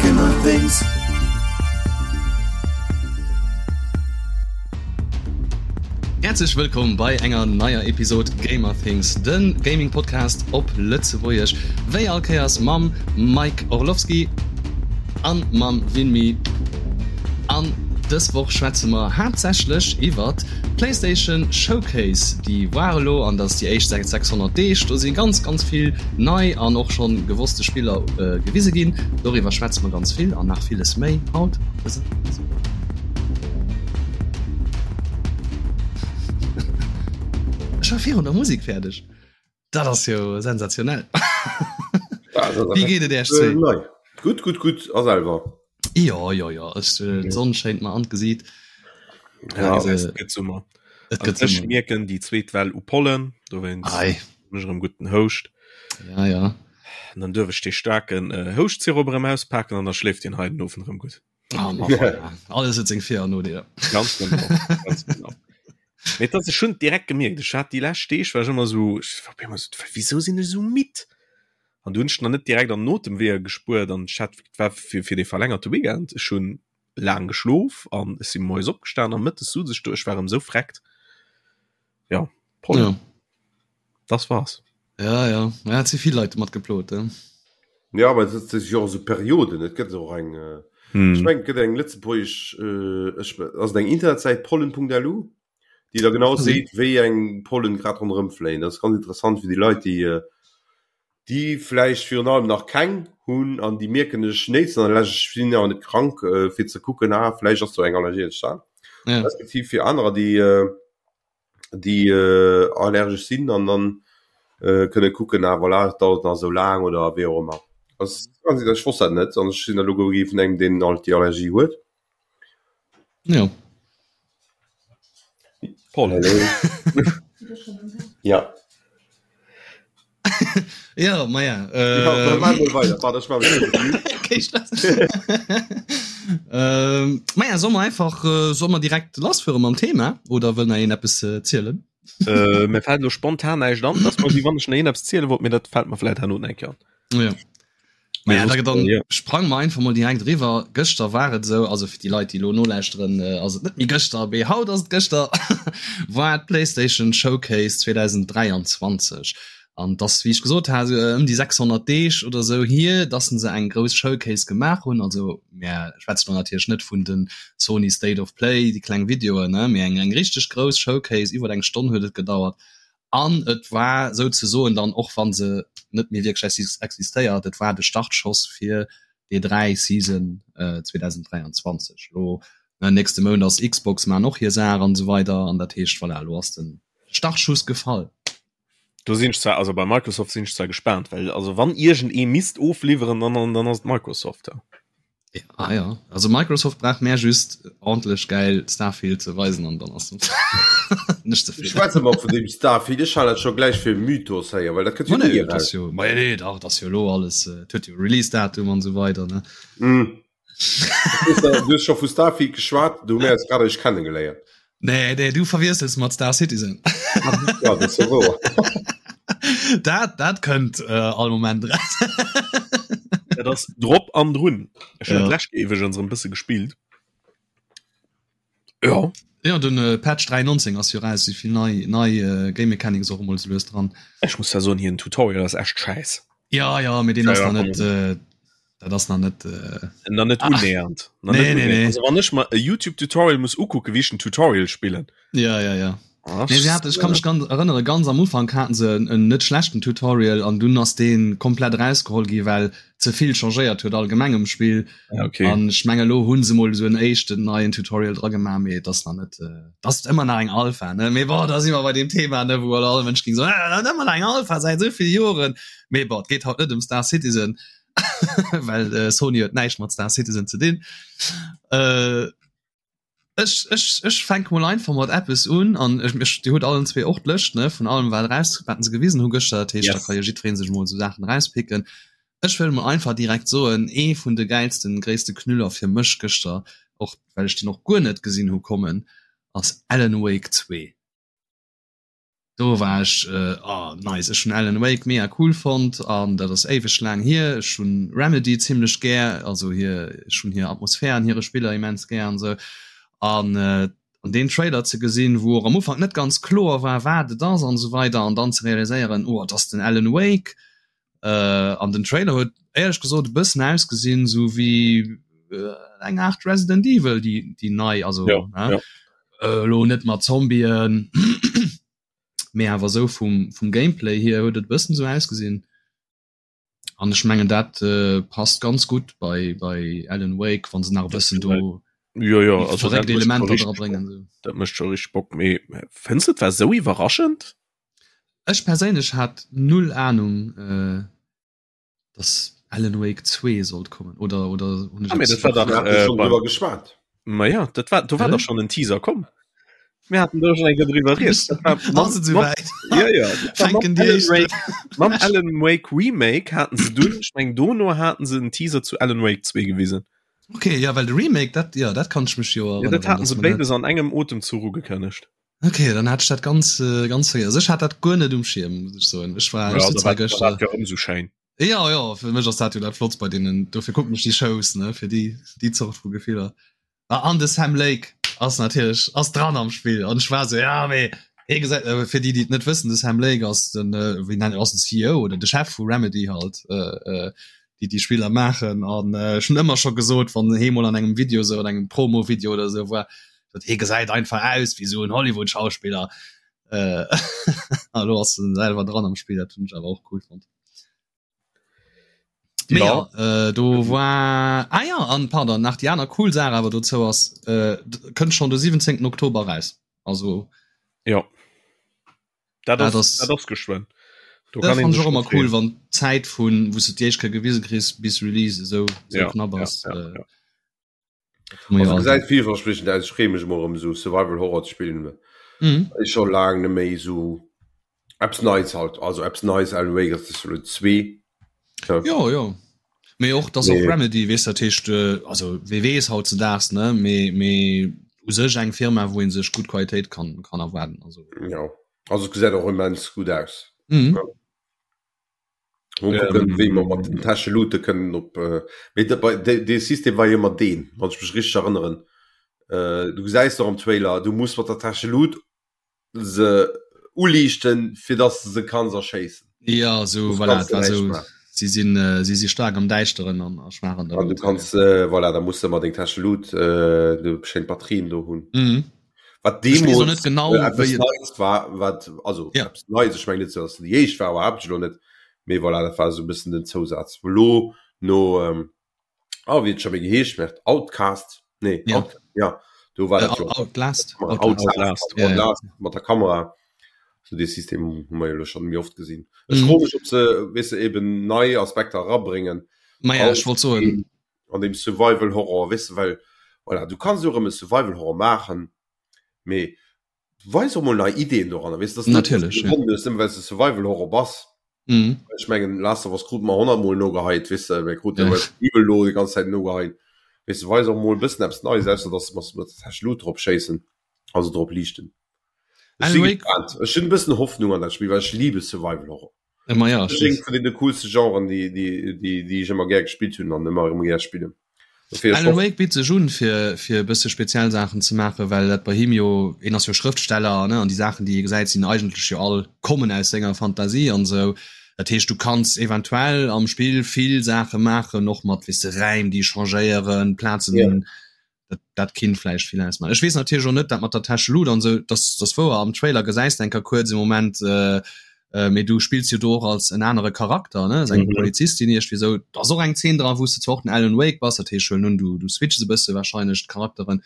Gamerthings. Häerzlech wëllkomm bei enger neier Episod Gamerthings, de Gaming Podcast op Lëtzebuergesch, wéi all Kéiers mam Mike Orlowski an mam Vinmi. An dës Woch schwätze mer haaptsächlech iwwert d'PlayStation Showcase, déi war elo an dat ass déi éischt säit 600 Deeg. Do si ganz ganz vill nei an och schonn gewosste Spiller gewise ginn. Doriwwer schwätze mer ganz vill an nach villes méi haut an dëser Episod. Ech war virun der Musik fäerdeg. Dat ass jo sensationell. Wéi geet et Iech zwee? Äh, gutt, gutt, gutt. A selwer? Jo, jo, jo. Ech, äh, d'Sonn schéint mer an d'Gesiit. Ja, ja, et gëtt Summer. Et gëtt Summer. Ech mierken déi zweet Well u Pollen, dowéinst Ei. mech erëm gutt den Houscht. Ja, ja. An dann duerf ech dee staarken äh, Houscht-Sirop erëm auspaken an da schléift deen hei den Owend erëm gutt. Oh, ma voilà. Alles huet seng Vir- an Nodeeler. Ganz genau, ganz genau. Mee dat ech hunn direkt gemierkt, ech hat déi lescht Deeg war ech ëmmer sou, ech war op eemol sou, wieso sinn ech sou midd? An du hunn ech nach net direkt an Notemweeër gespuert an ech hat, war fir, fir dee verlängerte Weekend, ech hunn laang geschlof an ech si moies opgestan an mëttes suz ech do, ech war erëm sou vreckt. Ja, Pollen. Ja. Das war's. Ja, ja. Ja, et si vill Leit domat geplot, ne? Ja, aber et si jo och esou Perioden. Et gëtt och eng, äh, Hm. ech mengen, et gëtt eng lëtzebuergesch, äh, ech, ass et eng Internetsäit pollen.lu, déi da genau Kann sinn. seet, wéi eng Pollen grad ronderëm fléien. Dat ass ganz interessant fir déi Leit, déi, äh, déi vläicht virun allem nach keng hunn an déi mierken, ech schnéizen an allergesch, ech sinn awer net krank, äh, fir ze kucken, ah, vläicht ass do eng Allergie entstan. Ja. Respektiv fir anerer, déi, äh, déi äh, allergesch sinn an dann äh, kënne kucken, ah, voilà, et dauert nach esou laang oder wéi och ëmmer. Also, ganz ech wosst dat net an ech sinn elo gewuer gi vun engem, deen halt déi Allergie huet. Ja. Paul. Ja. Ja, ma ja. Ja, Äh, mach mol weider. Warte, ech mach mech Okay, Stress. ähm, ma ja, soll mer einfach äh, soll mer direkt lassfuere mam Thema oder wëll nach een eppes äh, zielen? Äh, mir fällt lo spontan näischt an, dass mer, wéi wann ech nach een eppes ziele wollt, mee dat fällt mer vläit herno eng Kéier an. Ja. Ma ja, Mee da, soss, dann äh, ja. sprang mer einfach mol direkt riwwer. Gëschter war et esou, also fir déi Leit, déi elo nolauschteren, äh, ass et net méi gëschter, mee haut ass et gëschter, war d'PlayStation Showcase 2023. An et ass, wéi ech gesot hat, äh, ëm déi 600 Deeg oder esou hier, dass se eng grouss Showcase gemaach hunn. Also mär schwätzen elo natierlech net vun de Sony State of Play, déi kleng Videoen, ne, mee eng, eng richteg grouss Showcase, iwwer eng Stonn huet et gedauert. An et war souzesoen dann, och wa se net méi wierklech existéiert, et war de Startschoss fir d'E3 Season 2023. Elo nächste Mount ass Xbox, maachen och hir Saach an esou weider. An dat heescht, voilà, elo ass de Startschuss gefall. Do sinn ech zwar, also bei Microsoft sinn ech zwar gespaant, well also wann iergendee misst ofliwweren, dann dann ass et Microsoft. Ah ja, also Microsoft brauch mär just ordentlech gäil Starfield ze weisen an dann ass net ze vill. Schwätze mer vun deem Starfield, ech halen dat scho gläich fir Mythos héier, well dat kënnt jo Ma ni nee, eraus. dat ass jo, ma nee, dach, dat ass jo elo alles, et huet jo Release-Datum an esou weider, ne? Mm. Du hues scho vu Starfield geschwat, do hu mir eis grad eréischt kennegeléiert. Nee, nee, du verwiesselst mat Star Citizen. Ja, dat ass jo wouer. Dat, dat kënnt äh, all Moment raus. Dat ass drop an drun. Ech hun Ja. dat lescht iwweregens erëm bësse gespillt. Ja. Ja, den äh, Patch 3.19 ass jo raus, si vill nei, nei äh, Game Mechanics och emol sou lues dran. Ech muss zwar soen, hiren Tutorial ass echt schäiss. Ja, ja, mee deen Ja, ass ja, nach net, komm. äh, Dat ass nach net äh... nach net ah. unnähernd. Nach nee, nee, nee. Also, wann ech mal e YouTube Tutorial muss ukucken, wie ich ein Tutorial spielen. Ja, ja, ja. Ach, nee, sie hat, ich kann mich ganz erinnere ganz am Ufang hatten se en net schlechten Tutorial an du hast den komplett rausgeholt gi well zevill changéiert huet allgemeng im Spiel ja, okay. an ich menge lo hunn se mol so en éischten neien Tutorial dra gemaach mee das nach net äh, das ist immer nach eng Alpha ne mee boah, da si mer bei dem Thema ne wo alle Mensch ging so äh, immer nach eng Alpha seit so vill Joren mee boah, geht haut net um Star Citizen well äh, Sony huet näischt mat Star Citizen ze dinn. Äh, ech, ech, ech fänk mol einfach mat eppes un an ech, ech, Dir hutt allen zwee och d'Lëscht ne vun allem wat raus wat se gewisen hu gëschter, dat heescht Yes. da ka jo jiddweree sech mol sou Saachen rauspicken. Ech wëll mol einfach direkt soen, ee vun de gäilsten, gréisste Knüller fir mech gëschter, och well ech deen och guer net gesinn hu kommen, ass Alan Wake 2. Do war ech oh nice, ech hunn Alan Wake mega cool fonnt an dat ass éiweg laang hier. Ech hunn Remedy zimmlech gär, also hir ech hunn hir Atmosphär an hire Spiller immens gär an esou. An an deen Trailer ze gesinn, wou och am Ufank net ganz kloer war wat et ass an esou weider an dann ze realiséieren, oh et ass den Alan Wake. An den Trailer huet éierlech gesot e bëssen ausgesinn esou wéi eng Aart Resident Evil déi déi nei, also ja, ja. elo net mat Zombien, mee awer esou vum vum Gameplay hier huet et e bëssen esou ausgesinn. An ech mengen dat äh, passt ganz gutt bei bei Alan Wake, wann se nach e bëssen do ja, ja, also verréckt Elementer dra bréngen. So. Dat mécht scho richteg Bock, mee fënns du et war sou iwwerraschend? Ech perséinlech hat null Ahnung äh, dass Alan Wake 2 sollt kommen oder oder hunn ech ah, dat war dach, äh, schon drüber geschwat. Ma ja, dat war do war doch schon en Teaser komm. Mir hatten do schon eng drüber rieds. Ja, ja. Fänken die Alan Wake, mam Alan Wake Remake hatten se dunn, ich meng dono hatten se en Teaser zu Alan Wake 2 gewisen. Okay, ja well de Remake dat ja dat kann ich mech jo ja, dat hatten se béides an engem Otemzuch ugekënnegt. Okay, dann hat ich dat ganz äh, ganz vergessen. Also ich hat dat guer net um Schirm muss ich soen. Ech war, ja, ich sitz war, gëschter. Ja, ëmsou schéin. Ja ja, fir mech ass dat jo dat Flotts bei denen dofir kucken ech déi Shows ne fir déi déi Zort vu Gefiller. Ah, an de Sam Lake ass natierlech ass dran am Spill an ech war so ja mee hie gesäit äh, fir déi déi et net wëssen, de Sam Lake ass den äh, wéi nennt ass den CEO oder de Chef vu Remedy halt äh, äh, déi déi Spiller maachen an äh, ech hunn ëmmer scho gesot, wann hee mol an engem Video sou an engem Promo-Video oder sou war, dat hee gesäit einfach aus wéi sou en Hollywood-Schauspiller. Äh, a lo ass en selwer dran am Spill, dat hunn ech awer och cool fonnt. Mee ja, ja äh, do war ah ja an pardon nach die aner cool Saach awer dozou ass äh, kënnt schon de 17. Oktober raus. Also ja. Dat ass, dat ass, dat ass geschwënn. Do kann een sech ëmmer cool wann d'Zäit vun wou s de d'éischt Kéier gewise kriss bis Release esou esou ja, knapp ja, ass. ja, Äh, ja. dat hu mer jo Also all gesäit gär. vielverspriechend aus. Ech freeë mech emol erëm esou Survival Horror ze spillen. Mhm. Ech scho laang net méi esou eppes Neits halt, also eppes Neits Alan Wake ass das elo 2. Ja. Jo, jo. Mee och dass och Mee Remedy, weess dat heescht äh, also wee weess hautzedaags ne, mee mee u sech eng Firma wou ee sech gutt Qualitéit kann kann erwaarden also. ja, also et gesäit och immens gutt aus. Mhm. Ja. Mol kucken, wéi mer mat Ähm, den Täschelute kënnen op äh, mee de, bei, de, de System war jo ëmmer deen, wann ech mech richteg erënneren. Äh, du gesäis och am Trailer, du muss mat der Täschelut se uliichten, fir dass de se kanns erschéissen. Ja, sou Soss voilà, kanns et de war näischt sou maachen. si sinn äh, si si staark am Däischteren an a schwaach an der An du Lut. Ja. kanns äh, voilà, da muss de mat deng Täschelut äh, du schéin Batterien do hunn. Mhm. Wat Ech weess och net deemools genau äh, eppes wéi et Neies war, wat also ja. eppes Neies, ech mengen net sou, dass se déi éischt war, iwwerhaapt elo net, mee voilà, dat war esou e bëssen den Zousaz. Elo no ähm, ah, wéi huet scho méi geheescht, Mert Outcast, nee, Ja. Out, ja, do war Äh, dat jo Outlast, Outlast, Outlast. Outlast. Ja, ja. Outlast mat der Kamera. So dee System hu mer jo elo schon méi oft gesinn. Ech Mhm. froe mech, ob se, weess de, eben nei Aspekter erabréngen Ma ja, ech wollt soen, an dem Survival Horror, weess de, well voilà, du kanns jo erëm e Survival Horror maachen, mee weis och mol nei Ideen doranner, weess de, dass net Natierlech, ja. gewonnen hues, nëmme well s de Survival Horror bass. Mhm. Ech mengen Last of Us krute mer 100 mol nogeheit, weess de, mir krute Ja. Resident Evil lo déi ganz Zäit nogeheit. Weess de, weis och mol e bëssen eppes Neies, ausser dass mer mat der Täschelut drop schéissen, also drop liichten. Ech Alan si Wake gespaant. Ech hunn e bëssen Hoffnung an dat Spill, well ech liebe Survival Horror. Äh, ma ja, Das ist eng vun deene coolste Genren, déi, déi, déi, déi ech ëmmer gär gespillt hunn an ëmmer erëm gär spillen. Dofir, ech Alan hoffen. Wake bitt sech un, fir, fir e bësse speziell Saachen ze maachen, well dat bei him jo, hien ass jo Schrëftsteller, ne, an déi Saachen, déi hie gesäit, sinn eigentlech jo all, kommen aus senger Fantasie an esou. Dat heescht, du kanns eventuell am Spill vill Saache maachen, och mat, weess de, Räim, déi changéieren, Plazen, Ja. dat, dat kinnt vläicht vill ausmaachen. Ech weess natierlech och net, dat mat der Täschelut an esou, dass dass wouer, am Trailer gesäis de enker kuerz e Moment, äh, äh, mee du spills jo do och als en anere Charakter, ne, als eng Mhm. Polizistin iergendwéi esou. Da ass och eng Zeen dran, wou s de zwar och den Alan Wake bass, dat heescht, ech huelen un, du, du switches e bësse wahrscheinlech d'Charakteren.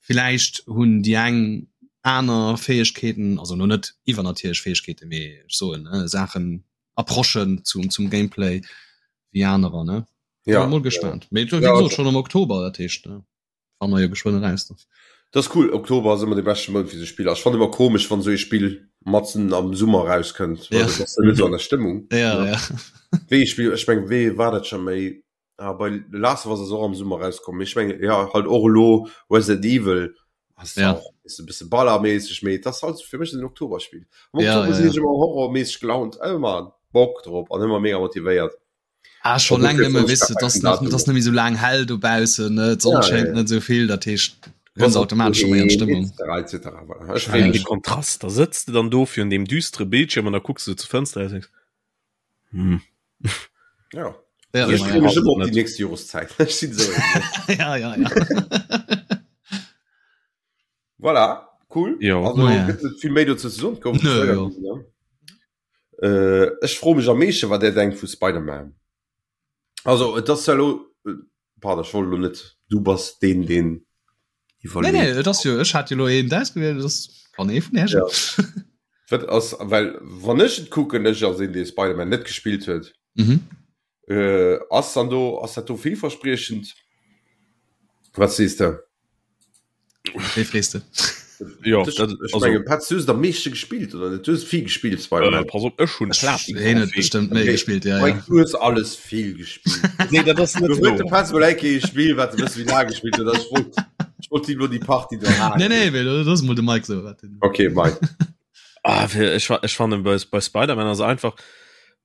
Villäicht hunn déi eng aner Fäegkeeten, also lo net iwwernatierlech Fäegkeeten, mee ech soen, ne, Saachen, Approchen zum, zum Gameplay wéi anerer, ne. Ja. Mol gespannt. Mee ja, Ja, gesot, schon am Oktober, dat heescht, ne? Fannen mer jo geschwënn eraus. Dat ass cool. Oktober ass ëmmer de beschte Mount fir sou Spiller. Ech fannen ëmmer komesch, wann esou ee Spill matzen am Summer erauskënnt, well Ja. du bass dann net esou an der Stëmmung. Ja, ne? ja. Wéi ee Spill, ech meng, wéi war dat scho méi? Ah, bei The Last of Us ass och am Summer erauskomm. Mee ech meng, ja, halt och elo Resident Evil. Ass ja. och ist e bësse ballerméisseg, mee das halt fir mech en Oktoberspill. Am ja, Oktober ja, sinn ja. ech ëmmer horrorméisseg gelaunt, ëmmer Bock drop an ëmmer mega motivéiert. Ah, schon lang nëmme wis du das nach das nemmi so lang hell du bausen ne d'Sonn ja, schéngt ja. net soviel dat heescht ganz automatisch schon méi an Stëmmung etc. etc. Voilà. Ech free mech. Kontrast da sëtzt du dann do virun dem düstere Bildschirm an da kucks du zur Fënster a denkst hm. Ja. Ja, ich freue mich immer op die nächste Jahreszeit. Ich sinn so ja, ja, ja. Voilà, cool. Ja. Also, ja. gëtt net vill méi dozou ze soen. Nö, ja. Äh, ech froe mech am meeschten, wat där denkt vu Spider-Man. Also, et ass ja lo, pardon, ech wollt lo net, du bass deen, deen iwwerleet. Nee, nee, et ass jo, ech hat jo lo een ausgewielt, et ass, kann ee vun Iech. Ja. Wat ass, well wann ech et kucken, ech als een, dee Spider-Man net gespillt huet, mhm. äh, ass dann do, ass dat do villverspriechend? Wat sees de? Wéi frees de? Ja, Ech dat, ech also, mengen, Petz, du hues et am meeschte gespillt, oder net? Du hues vill gespillt, äh, Spider-Man. pass op, ech hunn Ech Platin hien huet Trophée. bestëmmt méi Okay. gespillt, ja, Mike, ja. du hues alles vill gespillt. Nee, dat ass net Du huet de wouer. Petz mol eng Kéier e Spill, wat e bësse méi laang gespillt huet, ech wollt, ech wollt him lo déi Partie do haken. Nee, nee, mee dat ass mol de Mike sou, wat den. Okay, Mike. Ah, fir, ech, ech fannen bei, bei Spider-Man ass einfach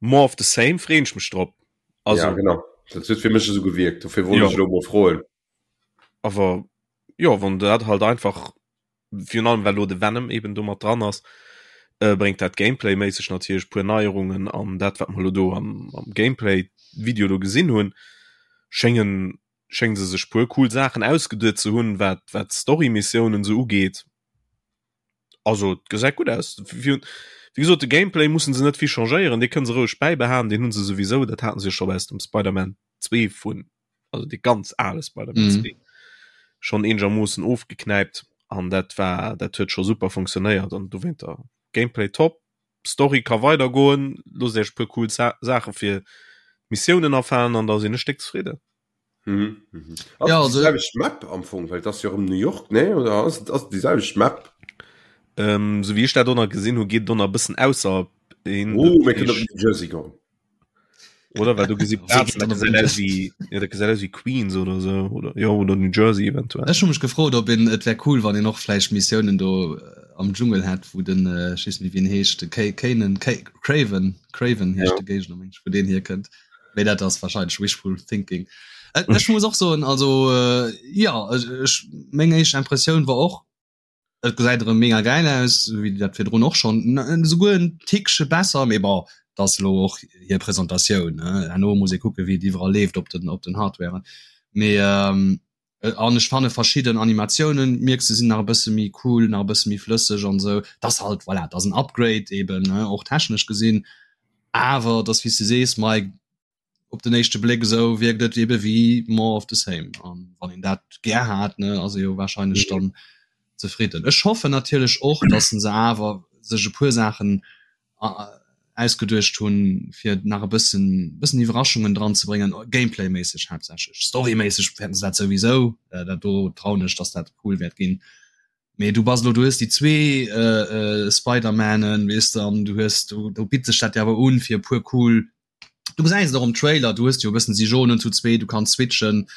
more of the same, freen ech mech drop. Also, ja, genau. Dat huet fir mech esou gewierkt, dofir wollt Ja. ech elo mol froen. Awer jo, wann dat halt einfach virun allem well lo de Venom eben do mat dran ass, äh, bréngt dat Gameplay-méisseg natierlech puer Neierungen an dat wat mer lo do am, am Gameplay-Video do gesinn hunn, schéngen schéngen se sech puer cool Saachen ausgeduet ze hunn, wat wat d'Story-Missiounen sou ugeet. Also et gesäit gutt aus. Wéi gesot, de Gameplay mussen se net vill changéieren, dee kënne se roueg bäibehalen, deen hunn se souwisou, dat haten se jo scho aus dem Spider-Man 2 vun also de ganz ale Spider-Man mm. 2 schon eengermoossen ofgeknäipt an dat war dat huet scho super funktionéiert an du winter Gameplay top Story ka weider goen los ech puer cool Sa Sache fir Missiounen erfahren an da sinn ech déck zefridden. Mhm. Mhm. Ja, also- selwecht Map am Fong, well das jo um New York ne oder ass ass déi selwecht Map? Ähm, so wie ech dat donner gesinn hu geet donner bëssen ausser een Oh, mir kënnen op New Jersey goen. Oder well du gesi Plazen, dat gesäit aus wéi ja, dat gesäit aus wéi Queens oder sou oder jo oder New Jersey eventuell. Ech hu mech gefrot, ob een, et wär cool, wann een och vläicht Missiounen do am Dschungel hätt, wou den, ech weess net méi wéi en heescht, de Kay, Kanan, Kay, Kraven, Kraven heescht de Géigner meng ech, wou deen hierkënnt. Mee dat ass wahrscheinlech wishful thinking. Ech muss och soen, also jo, ech, meng éischt Impressioun war och, Et gesäit erëm mega gäil aus, wéi dat virdrun och schonn, esouguer en Tickche besser, mee bon, dat ass elo och hir Presentatioun, herno muss ee kucke wéi et iwwerall leeft op den op den Hardwaren. Mee an ech fanne verschidden Animatiounen, mierks de, sinn nach e bësse méi cool, nach e bësse méi flësseg an esou. Dat ass halt, voilà, dat ass en Upgrade eben, och technesch gesinn, awer et ass wéi s de sees Mike, op den éischte Bléck esou wierkt et ebe wéi more of the same an wann een dat gär hat ne ass ee jo wahrscheinlech dann zefridden. Ech hoffen natierlech och dass se awer sech e puer Saachen ausgeduecht hunn fir nach e bëssen bëssen Iwwerraschungen dran ze bréngen Gameplay-méisseg haaptsächlech. Story-méisseg wäerten se dat souwisou, dat do trauen ech dass dat cool wäert ginn. Mee du bass elo, du hues déi zwee Spider-Manen weess de an du hues do do bitt sech dat jo awer un fir e puer cool du gesäis et och am Trailer, du hues jo e bëssen si Jonen zu zwee, du kanns switchen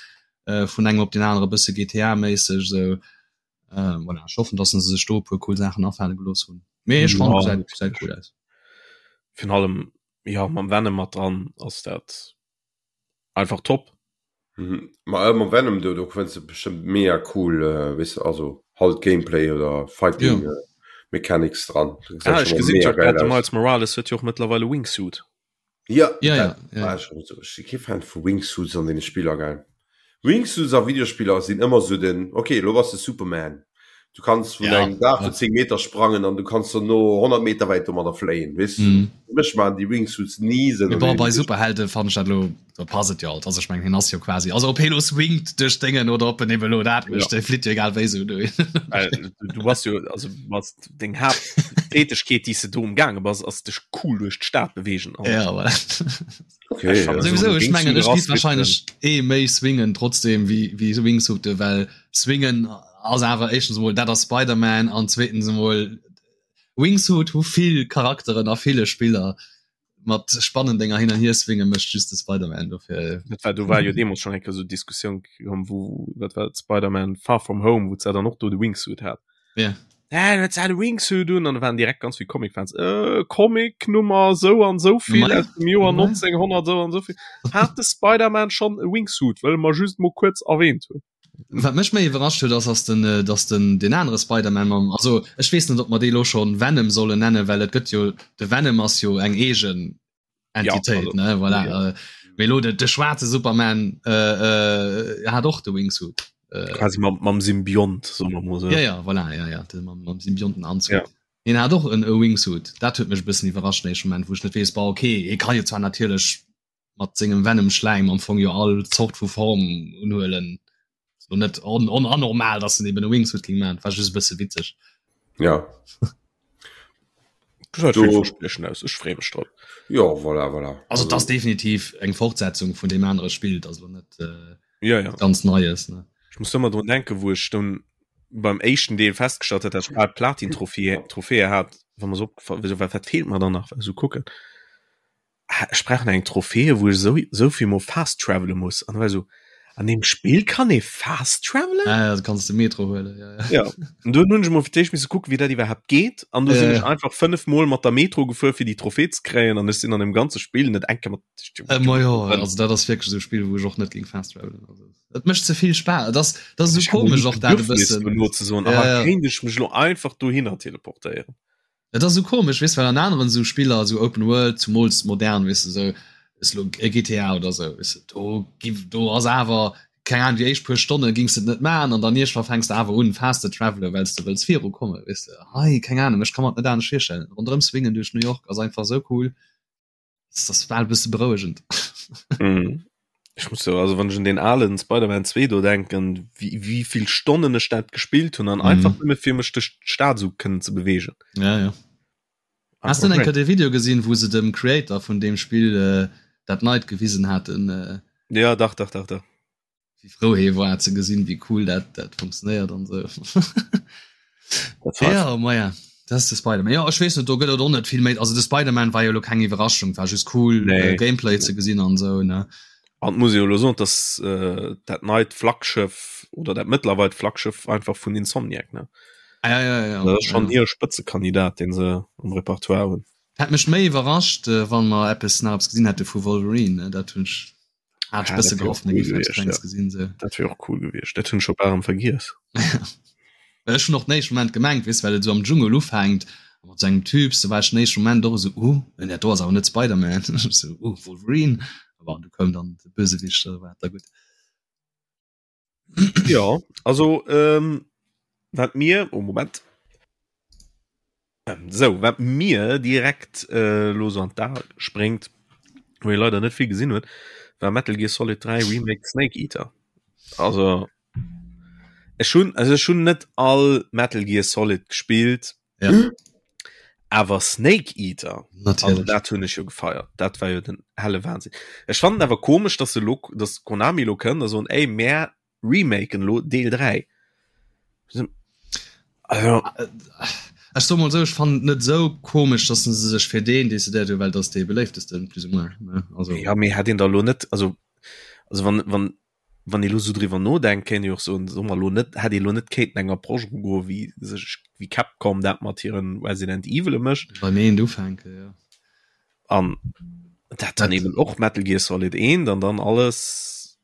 äh, vun engem op den anere bësse GTA-méisseg sou. Äh, voilà, ech hoffen, dass se sech do e puer cool Saachen afale gelooss hunn. Mee ech fand, Ja, gesäit, gesäit cool aus. Virun allem ja mam Venom mat dran ass dat einfach top. Mhm. Ma äh, mam Venom do, do kënns de bestëmmt mega cool, äh, weess de, also halt Gameplay oder Fighting Ja. äh, Mechanics dran. Dat gesäit Ah, schon ech mal gesinn mega jo geil grad de aus. Miles Morales huet jo och mëttlerweile Wingsuit. Ja, Ja, dat ja, ja. war ech och sou. Ech si kee Fan vu Wingsuits an deene Spiller, gell. Wingsuits a Videospiller sinn ëmmer sou den, okay, elo bass de Superman. Du kanns vun Ja, engem Daach ja. vu 10 Meter sprangen an du kanns dono 100 Meter wäit domadder fléien, weess du. Mhm. Fir mech maachen déi Wingsuits ni Sënn Mee an bon, deene bei Videospiller. Superhelde fannen ech dat elo, do passt et jo alt. Also ech mengen, hien ass jo quasi, also ob hie elo swingt duerch d'Déngen oder ob en eben elo dat mécht, Ja. dee flitt jo egal wéi sou do. Well du, du bass jo, also bass deng Haapttätegkeet, déi s de do umgaange bass, ass dech cool duerch d'Stad beweegen. An Ja, voilà. Okay, ech ja. fannen, so Sowieso, en ech mengen, Wingsuit ech géif eraspitten. wahrscheinlech eh méi swingen trotzdem wéi, wéi Wingsuite, well swingen ass awer éischtens emol, dat ass Spider-Man an zweetens emol Wingsuit hu vill Charakteren a ville Spiller. Mat Spannendenger hin an hier swinge mécht just de Spider-Man dofir. Dat war, do war jo deemools schon eng Kéier sou Diskussioun komm, wou, wat war et, Spider-Man Far From Home, wou d'sa dann och do de Wingsuit hat. Ja. Äh, huet se de Wingsuit un an da waren direkt ganz vill Comic-Fans. Äh, Comic Nummer sou an sou vill aus dem Joer 1900 sou an sou vill. Hat de Spider-Man schon e Wingsuit? Wëlle mer just mol kuerz erwähnt hunn. Wat mech méi iwwerrascht huet ass, ass den, äh, dass den den anere Spider-Man mam, also ech weess net, ob mer dee lo schon Venom sollen nennen, well et gëtt jo, de Venom ass jo eng eegen Entitéit, ja, also, ne, voilà. Ja. Äh, mee lo de, de schwaarze Superman äh, äh, hat och de Wingsuit. Äh, Quasi mam, mam Symbiont, soe mer mol sou. Ja, ja, voilà, ja, ja, de, mam, mam Symbiontenanzug. Ja. Hien hat och en e Wingsuit. Dat huet mech e bëssen iwwerrascht, den éischte Moment, wou ech net weess, bah, okay, hie ka jo zwar natierlech mat sengem Venom-Schläim am Fong jo all Zort vu Form unhuelen. Ass lo net on, on anormal, dass en eben e Wingsuit ging man. War just e bësse witzeg. Ja. Versprechen aus. Ech freeë mech drop. Ja, voilà, voilà. Also, das definitiv eng Fortsetzung vun dem anere Spiel, das lo net äh, ja, ja. ganz Neies. Ne? Ech muss ëmmer drun denken, wou ech dunn beim éischten Deel festgestallt hat, dass ech al Platin-Trophäe Trophäe hat, wa mer so opgefall, wieso, wat, wat feelt mer dann nach? So kucken. Ech brauch nach eng Trophäe wou ech sou souvill mol fast travele muss an war so an deem Spill kann ee fast travelen? Ja, ja, du kanns de Metro huelen. Ja, ja. ja. An dunn hunn ech mol fir d'éischt misse kucken wéi dat iwwerhaapt geet an du sinn ech einfach 5 mol mat der Metro gefuer fir déi Trophäe ze kréien an ech sinn an dem ganze Spill net eng Kéier mat Äh, ma jo, also dat ass wierklech esou e Spill wou ech och net géing fast travelen. Also et mécht ze vill Spaass. Et ass dat ass esou komesch och dat e bëssen. Elo ze soen, Ja, ah, ja. kéint ech mech elo einfach dohinner teleportéieren. Et ass esou komesch, weess, well an aneren esou Spiller, esou Open World, zumools modern, weess de, esou ass elo e GTA oder esou, weess de, do gi, do ass awer, keng Ahnung, déi éischt puer Stonne gings de et net maachen an dann iergendwa fänks de awer un fast ze travelen, well s de wëlls viru kommen, weess de. Hei, keng Ahnung, ech ka mer et net anescht virstellen. Ronderëm swingen duerch New York ass einfach esou cool. Das ass bal e bësse berouegend. Mm. Ech muss so, also wann ech un den alen Spider-Man 2 do denken, wie, wie vill Stonnen ech dat gespillt hunn an mm. einfach nëmme fir mech duerch d'Stad sou kënnen ze bewegen. Ja, ja. Hast du enker de Video gesinn, wou se dem Creator vun dem Spill äh, dat neit gewisen haten? Äh, ja, dach, dach, dach, dach. Wéi frou hee war ze gesinn, wéi cool dat dat funktionéiert an sou. Ja, ma ja, dat ass de Spider-Man. Jo, ech weess net, do gëtt et och net vill méi. Also de Spider-Man war jo elo keng Iwwerraschung, war just cool nee. äh, Gameplay ze gesinn an sou, ne. An muss jo lo soen, dass äh, dat neit Flaggschëff oder dat mëttlerweilt Flaggschëff einfach vun Insomniac, ne? Ah, ja, ja, ja, dat ass schon ja. hir Spëtzekandidat, den se am Repertoire hunn. Hätt mech méi iwwerrascht, äh, wann mer eppes nach eppes gesinn hätte vu Wolverine, ne? Dat hunn ech Hat ah, bësse gehofft, cool gewiescht, ja. gesinn se. Dat wär och cool gewiescht. Dat hunn scho barem vergiess. Ech hun och den éischten Moment gemengt, weess well et esou am Dschungel ufänkt mat sou engem Typ, du war ech den éischten Moment och esou uh, dat do ass awer net Spider-Man, sou uh, Wolverine, aber du koum dann de Bösewicht, da war et da gutt. Ja, also ähm, wat mir, oh Moment. Sou, wat mir direkt elo sou an d'A spréngt, wou ee leider net vill gesinn huet, war Metal Gear Solid 3 Remake Snake Eater. Also ech hunn also ech hunn net all Metal Gear Solid gespillt, ja. awer Snake Eater also dat hunn ech jo gefeiert. Dat war jo den helle Wahnsinn. Ech fannen awer komesch, dass se lo dass Konami lo kënnt a soen, ey mär remaken lo Deel 3. Also, ech soe mol sou, ech fannen et net sou komesch, dass se sech fir deen decidéiert hunn, well dat ass dee beléiftesten, plus ou moins, ne? Also. Ja, mee hätt een da lo net, also, also wann, wann, wann ee lo sou driwwer nodenkt, kéint ee jo och soen, soe mer lo net, hätt ee lo net kéinten eng Approche ugoen, wéi sech, wéi Capcom dat mat hiren Resident Evile mécht. Beim eent ufänken, jo. An dat dann eben och Metal Gear Solid 1 an dann alles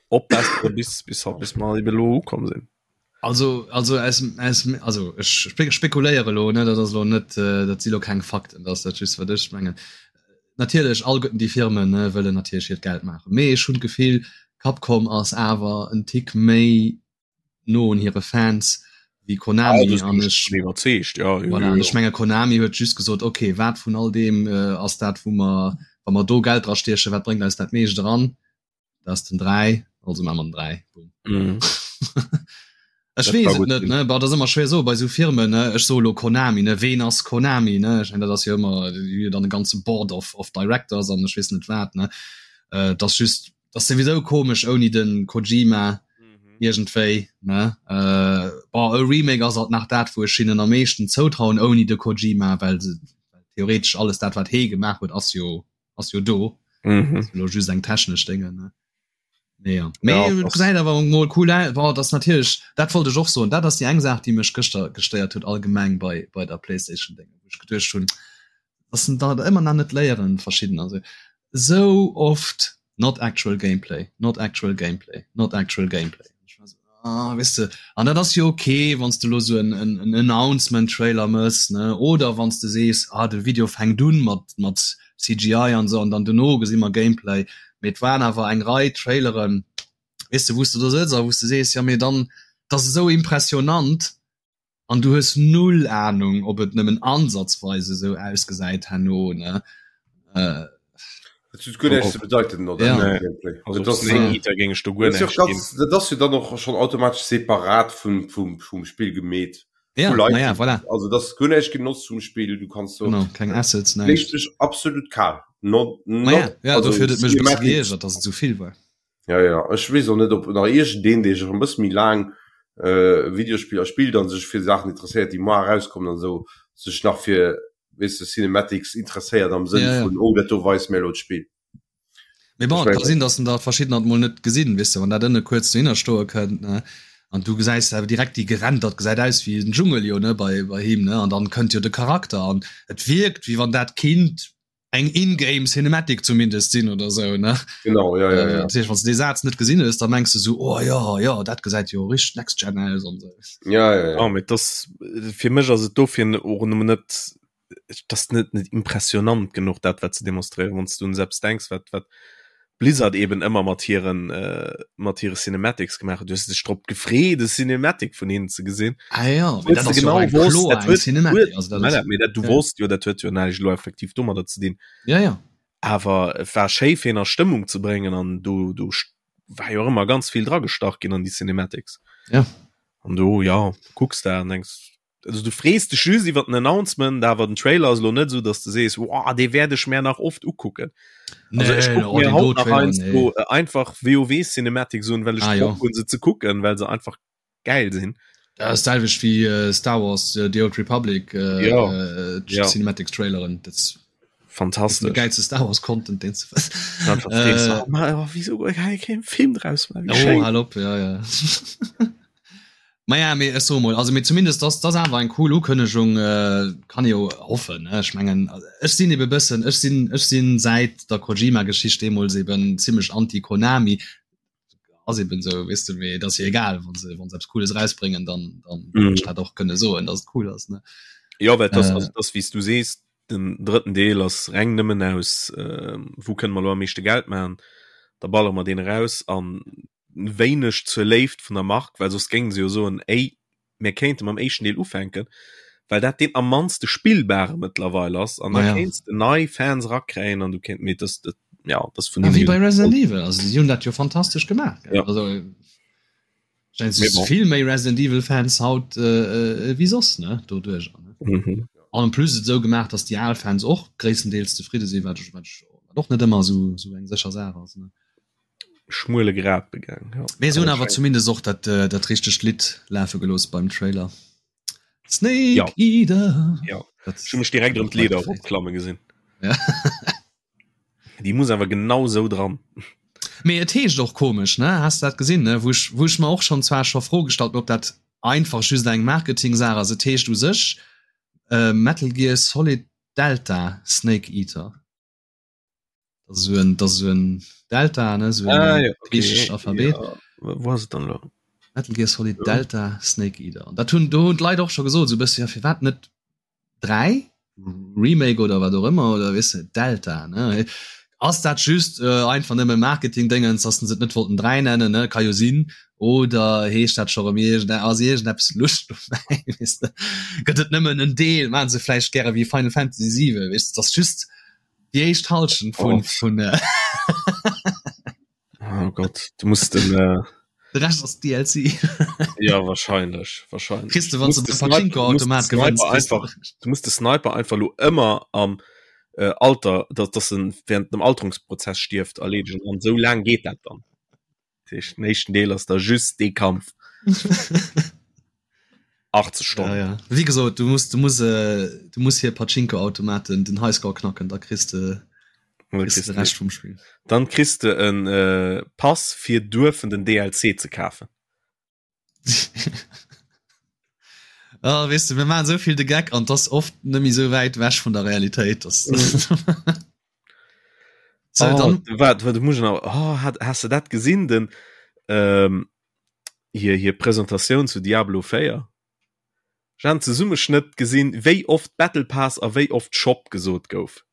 opbessere bis bis haut bis mer eben elo ukomm sinn. Also also aus aus also ech spe spekuléiere lo ne dat ass lo net äh, dat si lo keng Fakten, dat ass dat just wat ech mengen. Natierlech all gëtten déi Firmen ne wëllen natierlech hiert Geld maachen, mee ech hunn d'Gefill Capcom ass awer en Tick méi no un hire Fans wéi Konami ah, an ech iwwerzeegt ja, voilà, ja, ja. ech menge Konami huet just gesot okay wat vun all deem äh, ass dat wou mer wa mer do Geld dra stieche wat bréngt eis dat meescht eran dat ass den 3 also maache mer den 3 Boom. Mm. Ech weess et net ne dat ass ëmmer schwéier so bei sou Firmen ne ech soe lo Konami ne ween ass Konami ne ech meng dat ass jo ëmmer déi hu dann e ganze Board of of Directors an ech weess net wat ne äh, dat ass just dat ass souwisou komesch ouni de Kojima iergendwéi ne äh, bon e Remake ass alt nach dat wou ech hinnen am meeschten zoutrauen ouni de Kojima well se. theoretesch alles dat wat hee gemaach huet ass jo ass jo do mhm. lo just eng technesch Dinge ne nee, ja. Mee, ja, gesäit awer mol cool aus. War das natierlech dat wollt ech och soen dat ass déi eng Saach déi mech gëschter gestéiert huet allgemeng bei bei der Playstation Dinge wou ech geduecht hunn dass en da ëmmer nach net léieren verschidden also sou oft not actual gameplay not actual gameplay not actual gameplay ah, weißt du an dat ass jo okay wann du lo so en, en, en Announcement Trailer mëss ne oder wann du sees ah de Video fänkt un mat mat CGI an so an dann duerno gesi mer Gameplay mee et waren awer eng Rei Traileren weißt du wous du do sëtz a wous du sees ja mee dann dat ass esou impressionant an du hues null Ahnung ob et nëmmen ansatzweis esou ausgesäit herno ne äh, Dat huet guer näischt ze bedeiten oder ja. Gameplay. Also, das, äh, géing ech do guer näischt ginn. Dat ass jo dann och schon automatesch separat vum, vum, vum Spill gemeet. Ja, na ja, voilà. Also das guer näischt genotzt vum Spill, du kannst so genau, keng Assets näischt. Léisst absolut kal. Not, not, ja, ja, also, dofir huet et mech e bësse geiergert, dass et esou vill war. Ja, ja, ech weess och net, ob nach iergendeen, dee sech e bësse méi laang äh, Videospiller spillt an sech fir Saachen interesséiert, déi moar erauskommen an esou, sech nach fir, weess de, Cinematics interesséiert am Sënn ja, ja. vun, oh, dat do weist mir elo d'Spill. Mee bon, et ka sinn, dass en der verschiddener et mol net gesinn, weess de, wann dat ënne kuerz dohinner stoe kënnt, ne, an du gesäis awer direkt déi gerendert, gesäit aus wéi en Dschungel jo, ne, bei, bei him, ne, an dann kënnt jo de Charakter an et wierkt, wéi wann dat kinnt eng In-Game Cinematic zumindest sinn oder sou, ne? Genau, ja, ja, ja. Dat heescht, wann s de dee Saz net gesinn hues, da mengs de sou, oh jo, jo, dat gesäit jo richteg Next Gen aus an sou. Ja, ja, ja. Ah, mee das, fir mech ass et dofir och nëmmen net, das net net impressionant genuch dat wat ze demonstréieren, wann s du un selbst denks, wat wat Blizzard eben ëmmer mat hiren äh, mat hire Cinematics gemaach huet. Du hues dech drop gefreet, e Cinematic vun hinnen ze gesinn. Ah ja, mee dat ass jo eng kloer eng Cinematic. Also dat ass, mee dat, du ja. wosst jo, dat huet jo näischt elo effektiv domadder ze dinn. Ja, ja. Awer et war schéi fir en a Stëmmung ze bréngen an du du war jo och ëmmer ganz vill dragestach ginn an déi Cinematics. Ja. An do ja kucks da an denks also du frees dech just iwwer den Announcement, awer den Trailer ass lo net sou, dass du sees, wow, dee wäert ech mär nach oft ukucken. Also ech Nee, kuck oh, mir den haut do nach Trailer, heiansdo nee. äh, einfach WoW Cinematics un, well ech Ah, Bock jo. hunn se ze kucken, well se einfach geil sinn. Dat ass d'selwecht wéi äh, Star Wars äh, The Old Republic äh, Ja, äh, ja. Cinematics Traileren. Dat ass de Fantastesch. geilste Star Wars Content, deen s de fënns. Einfach frees, Äh, oh, ma, oh, wieso kann ich keinen Film draus machen? Wie Oh, schéin. hal op, ja, ja. Maja, mee ech soe mol, also mee zumindest dass dass awer eng cool Ukënnegung, äh, kann ee jo hoffen, ne? Ech mengen, ech sinn ebe bëssen, ech sinn, ech sinn säit der Kojima-Geschicht deemools eben zimmlech anti-Konami, ass eben esou, weess de, mee et ass jo egal, wa se, wa se eppes Cooles erausbréngen, dann, dann mm. ech dat och kënne soen, dass et cool ass, ne? Jo, well das, äh, also das, wéi s du sees, den drëtten Deel ass reng nëmmen aus, äh, wou kënne mer elo am meeschte Geld maachen, da ballere mer deen eraus an wéineg zur Léift vun der Mark, well soss géingen se jo soen, ey, mir kéinte mam éischten Deel ufänken, well dat deen am mannste spillbare mëttlerweil ass an da Naja. kéints de nei Fans erakréien an du kéint, mee das, dat, ja, das vun Ja, hinne wéi jo bei Resident Evil, also si hunn dat jo fantastesch gemaach, gell? Ja. Also scheint Mee bon. vill méi Resident Evil Fans haut äh, äh, wéi soss, ne, doduercher, ne? Mhm. An en plus et esou gemaach, dass déi al Fans och gréisstendeels zefridde sinn, wat ech, wat ech, wat och net ëmmer esou, esou eng sécher Saach ass, ne? Schmuele Grat begaang. Ja. Mee se hunn awer zumindest och dat, äh, dat richtegt Lidd lafe gelooss beim Trailer. Snake Ja. Eater. Ja. Dat Ech hu mech direkt erëm d'Leeder eropklamme gesinn. Ja. Déi muss awer genau sou dran. Mee et heescht och komesch, ne? Has de dat gesinn, ne? Wou ech, wou ech mer och schonn zwar scho Fro gestallt hunn, ob dat einfach just eng Marketing-Saach ass. Et heescht u sech äh, Metal Gear Solid Delta Snake Eater. Das ist so ein, das ist so ein Delta, ne? So ein ah, ja, okay. griechisches Alphabet. Ja. Wo ass et dann lo? Metal Gear Solid ja. Delta Snake Eater. Und dat hunn do hunn d'Leit och scho gesot, so bësse ja firwat net 3 Remake oder wat och ëmmer oder weess de Delta ne? Ass dat just äh, einfach nëmme Marketing-Dingens, dass se et net wollten 3 nennen, ne? Ka jo sinn. Oder heescht dat scho rëm iergend ass iergendeppes Lusch dobäi, weess de? Gëtt et nëmmen en Deel, maachen se vläicht gäre wéi Final Fantasy 7, weess de, dass just Déi éischt Halschent vun oh. vun äh, Oh Gott, du musst den äh De Rest ass DLC. ja wahrscheinlich wahrscheinlich. Kriegst du, wann du den Pachinko-Automat gewënns. Einfach, du musst de Sniper einfach lo ëmmer am äh, Alter, dass, dass en während dem Alterungsprozess stierft erleedegen an sou laang geet dat dann. Den éischten Deel ass da just dee Kampf. 80 Stonnen. Ja, ja. Wéi gesot, du muss, du muss, äh, du muss hier Pachinko-Automaten den Highscore knacken, da kriegst du, kriegst du den Rest vum Spiel. Dann kriegst du en äh, Pass fir duerfen den DLC ze kafen. Ah, weißt du, wir machen so viel de Gag an das oft nemmi so weit weg von der Realität. Das, mhm. so, oh, dann, wat, wat, muss noch, oh, hat, hast du dat gesehen den ähm, hier hier Präsentatioun zu Diablo 4 Ech hat en Zesummeschnëtt gesinn wéi oft Battle Pass a wéi oft Shop gesot gouf.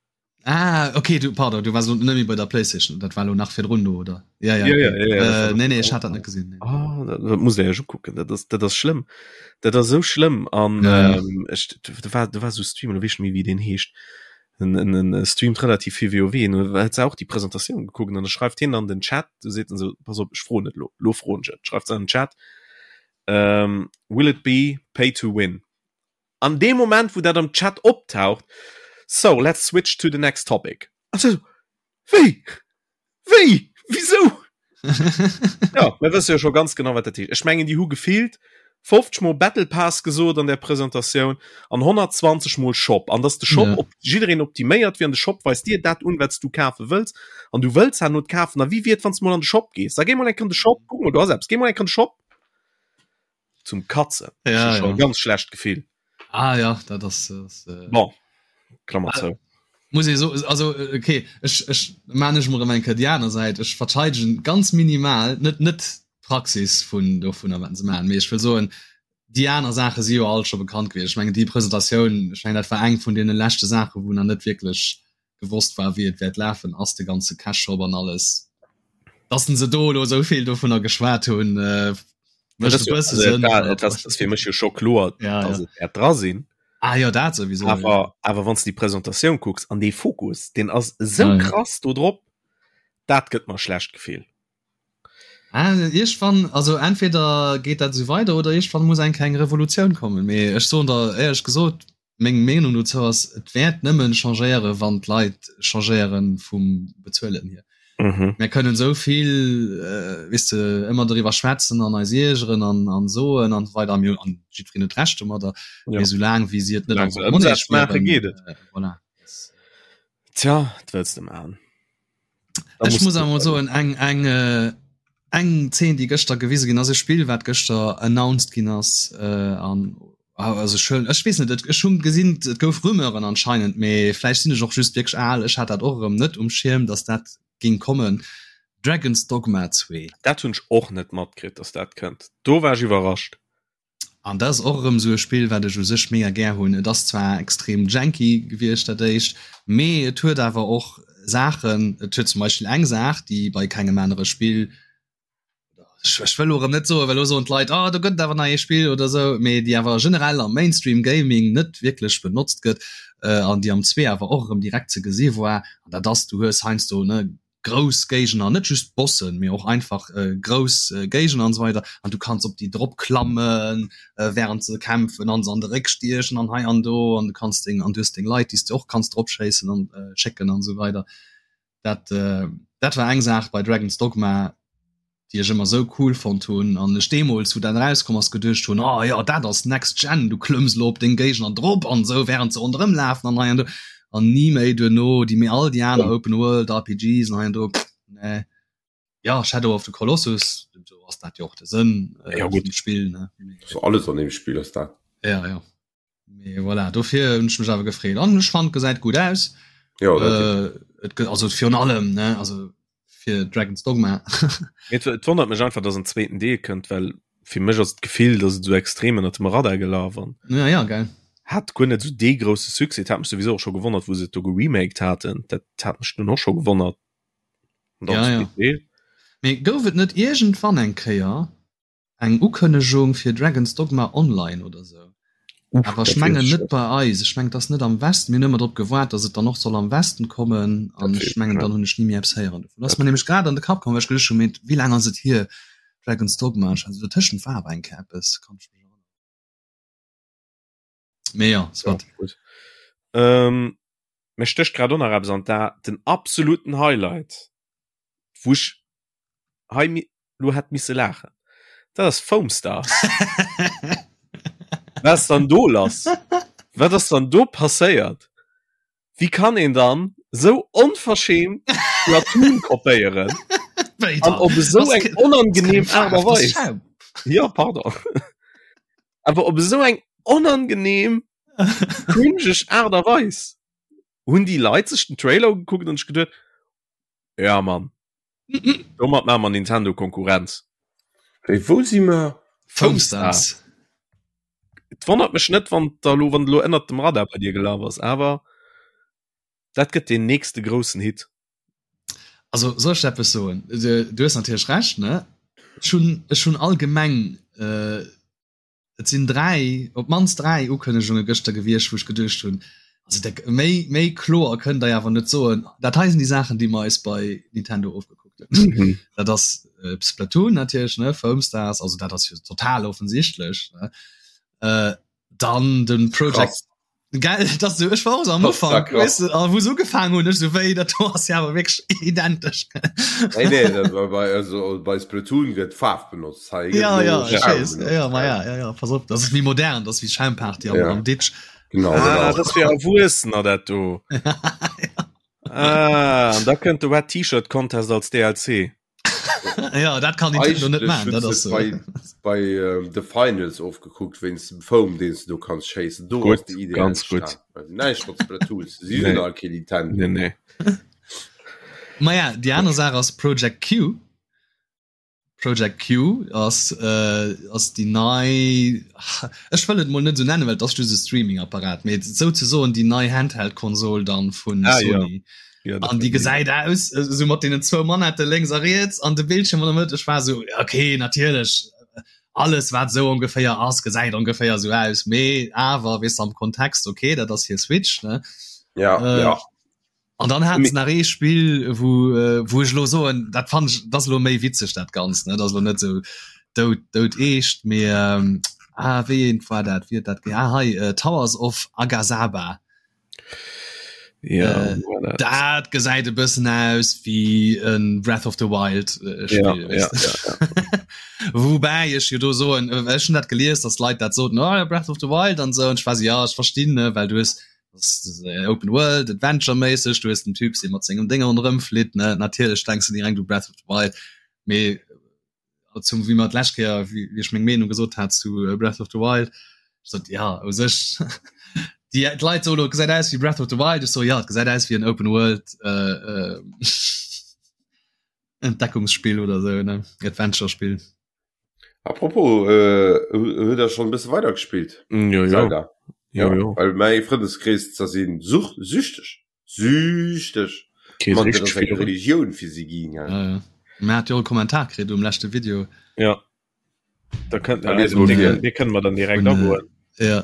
Ah okay du pardon du wars lo net méi bei der Playstation dat war lo nach virdrun do oder? Ja ja, ja, ja, ja, ja, äh, nee nee ech hat dat net gesinn. Nee. Oh, dat, dat muss der jo kucken dat ass dat ass schlëmm dat ass sou schlëmm an ja, ja. ähm, ech du war du war sou Streamer du weess méi wéi deen heescht en, en, en streamt relativ vill WoW en huet se auch déi Presentatioun gekuckt an da schreift hien an den Chat du seet en sou pass op ech froen et lo lo froen ech et schreift se an den Chat ähm, will it be pay to win an deem Moment wou dat am Chat optaucht so let's switch to the next topic also wéi wéi wieso ja mir wësse jo scho ganz genau wat dat heescht ech mengen déi hu gefillt 50 mol Battle Pass gesot an der Presentatioun an 120 mol Shop an dass de Shop ja. op jiddereen optiméiert wier an de Shop weist dir dat un wat s du kafe wëlls an du wëlls herno kafen a wéi wier et wann s mol an de Shop gees da géi mol eng an de Shop kuck mol do ass eppes géi mol eng an de Shop zum Katzen ja, ja. ganz schlecht Gefill ah ja dat ass, das, äh, bon Klammer ah, zou muss ich so also äh, okay ech ech man ech mol eng Kéier déi aner Säit ech verteidegen ganz minimal net net Praxis vun dovunner wat se man mee ech wëll soen déi aner Saache si jo all scho bekannt gewiescht ech mengen déi Presentatioun ech mengen dat war eng vun deene leschte Saache wou nach net wierklech gewosst war wéi et wäert lafen ass de ganze Cash Shop an alles dass se do elo esou vill dovunner geschwat hunn äh, mécht e bësse Sënn. Dat ass fir mech jo scho kloer ja, dass ja. et wäert dra sinn. Ah jo dat sowieso. Awer ja. awer wann s de déi Presentatioun kucks an dee Fokus deen ass esou Ja, ja. krass do drop, dat gëtt mer e schlecht Gefill. Ah, iergendwann, also entweder geet dat esou weider oder iergendwann muss eng kleng Revolutioun kommen. Mee ech soen der éierlech gesot, meng Meenung dozou ass, et wäert nëmmen changéieren, wann d'Leit changéieren vum Bezuelen hier. Mhm. Mir kënnen esou vill, weess de, ëmmer doriwwer schwätzen an eis iergeren an, an soen an esou weider, an mir hunn, an jiddwereen huet Recht domadder, Ja. mee soulaang wéi si et net Soulaang am se Portemonnaie Ëmsaz maachen, spieren, geet et. voilà. Tja, wat wëlls de maachen? Da Ech muss muss de awer mol soen, eng, eng, eng Zeen, déi gëschter gewise ginn ass, e Spill, wat gëschter announced ginn ass, an also ech huelen, ech weess net, et, ech hunn gesinn, et gouf Rumeuren anscheinend, mee vläicht sinn ech och just wierklech al, ech hat dat och erëm net um Schierm, datt dat géing kommen, Dragon's Dogma 2. Dat hunn ech och net matkritt, datt dat kënnt. Do war ech iwwerrascht. An dat ass och erëm esou e Spill, wat ech u sech mega gär hunn. Et ass zwar extrem janky gewiescht dat éischt, mee et huet awer och Saachen, et huet zum Beispill eng Saach, déi bei kengem anere Spill, ech, ech wëll elo erëm net soen, well elo soen d'Leit, oh do gëtt et awer nei ee Spill oder esou, mee déi awer generell am Mainstream Gaming net wierklech benotzt gëtt an déi am 2 awer och erëm direkt ze gesi war, an dat ass, du hues heiansdo, ne, grouss Géigner, net just Bossen, mee och einfach grouss Géigner an esou weider an du kanns op déi drop klammen während se kämpfen an se an de Réck stiechen an hei an do an du kanns deng an du hues deng Leit déi s de och kanns drop schéissen an schécken an esou weider. Dat dat war eng Saach bei Dragon's Dogma déi ech ëmmer sou cool fonnt hunn an ech deemools wou dat erauskomm ass geduecht hunn, oh jo dat ass next gen, du klëmms lo op deng Géigner drop an esou während se ronderëm lafen an hei an do an ni méi duerno déi méi all déi aner Open World RPGs an hei an do pff nee. Ja Shadow of the Colossus do ass dat jo och de Sënn äh, ja, vum Spill ne. So alles an dem Spill ass dat. Ja ja. Mee voilà, dofir hunn ech mech awer gefreet. An ech fand gesäit gutt aus. Ja, dat äh, et gëtt also virun allem ne also fir Dragon's Dogma. Et, et wonnert mech einfach, dass en zweeten Deel kënnt, well fir mech ass d'Gefill, dass et sou extrem ënnert dem Radar gelaf an ja ja geil. hat guer net sou dee grousse Succès. Et hat mech souwisou och scho gewonnert, wou se et do geremaked haten. Dat hat mech dunn och scho gewonnert. An dann Ja, ja. zweeten Deel. Mee gouf et net iergendwann eng Kéier Eng Ukënnegung fir Dragon's Dogma Online oder sou. Awer ech mengen net bei eis. Ech mengen et ass net am Westen. Mir hunn ëmmer drop gewaart, datt et dann och soll am Westen kommen an ech mengen dann hunn ech ni méi eppes héieren dovun. Ass mer nämlech grad an de Kapp komm, well ech geduecht hunn, mee wéi laang ass et hier Dragon's Dogma? Ech also dotëschent war awer eng Kéier eppes, kann ech mech erënneren. Mee jo, soit. Ja, gutt. Ähm, mir stécht grad och nach eppes an d'A, den absoluten Highlight, wou ech hei lo hätt misse laachen, dat ass Foam Stars. Wat ass dann do lass? Wat ass dann do passéiert? Wéi kann een dann sou onverschämt Splatoon kopéieren? An op esou eng onangenehm Aart a Weis. Ja, pardon. Awer op esou eng onangenehm, cringeg Aart a Weis hunn déi Leit sech den Trailer ugekuckt an sech geduet, Ja Mann, domat maache mer Nintendo Konkurrenz. Wéi, wou si mer? Foamstars. Et wonnert mech net, wann der lo, wann lo ënnert dem Radar bei dir gelaf ass, awer dat gëtt deen nächste groussen Hit. Also soll ech der eppes soen? Du, du hues natierlech Recht, ne? Ech hunn, ech hunn allgemeng, äh, et sinn 3, op d'mannst 3 Ukënnegunge gëschter gewiescht, wou ech geduecht hunn, also dat, méi, méi kloer kënnt der awer net soen, dat hei sinn déi Saachen, déi mer eis bei Nintendo ofgekuckt hunn. Mhm. Dat ass äh, Splatoon natierlech, ne, Foamstars, also dat ass jo total offensichtlech, ne? Äh, dann den Project Krass. Gell, dass du, ech war och am Ufank, weißt du, a wou se ugefaangen hunn, ech so wéi, dat do ass ja awer wierklech identesch. Nee, nee, dat war bei, also bei Splatoon gëtt Faarf benotzt, hei gëtt Ja, elo ja, ech Schaum weess, benotzt, ja, ma gell? ja, ja, ja, pass op, dat ass méi modern, dat ass wéi Schaumparty am, Ja. am Ditch. Genau, Ah, genau. dat ass fir Erwuessener dat do. Ah, an da kënnt de Wet T-Shirt Contest als DLC. Ja, dat kann Nintendo net Eigentlech maachen, hunn dat ass se so. bei, bei ähm, The Finals ofgekuckt wéinst dem Foam, deen s du do kanns schéissen. Do ass Gutt, déi Idee ganz gutt. entstan. Also näischt mat Splatoon, si sinn Nee. all keen Nintendo. Nee, nee. Maja, déi aner Saach ass Project Q. Project Q ass, äh, ass déi nei, ech wëll et mol net esou nennen, well et ass just e Streaming-Apparat, mee souzesoen déi nei Handheld-Konsol dann vun Ah, ja. Sony. Ja, An déi gesäit aus esou mat deenen zwou Manette lénks a riets an de Bildschirm an der Mëtt. Ech war esou, okay, natierlech, alles wat esou ongeféier ass, gesäit ongeféier esou aus, mee awer, weess de, am Kontext, okay, dat ass hir Switch, ne? Ja, Äh, ja. An dann haten se nach ee Spill, wou, wou ech elo soen, dat fand ech, dat ass elo méi witzeg dat Ganzt, ne? Dat ass elo net esou dout, dout eescht, mee ah, wéi eent war dat, wéi huet dat ge-, ah hei, Towers of Aghasaba. Ja, äh, dat gesäit e bëssen aus wie en Breath of the Wild äh, Spiel, ja, ja, ja, ja. Wobei ech jo do soen äh, ech hun dat gelies, dass Leit dat soten oh, Breath of the Wild an so und ich war so, ja ech verstinn ne, well du hues das, äh, Open World Adventure méisseg, du hues den Typ dee mat sengem Dénger ronderëm flitt ne natierlech denkst du direkt u Breath of the Wild mee zum wéi mer d'lescht Kéier wéi wéi ech meng Meenung gesot hat zu äh, Breath of the Wild ich sot ja u sech déi d'Leit so gesäit aus wéi Breath of the Wild ech so ja et gesäit aus wéi en Open World äh, äh, Entdeckungsspiel oder so ne Adventure Spiel. Apropos äh, huet der schon e bësse weider gespillt? Mm, jo, jo. Zelda. Jo, jo. Well mäi Frëndeskrees da sinn such süchteg. Süchteg. Okay, Mann, richtig dat ass eng schwierig. Religioun fir si ginn. Ja. Ja, ja. Mir hat jo e Kommentar kritt um leschte Video. Ja. Da könnt Da lese mer vir. Dir kënnen mer dann direkt Vun, äh, agoen. Ja.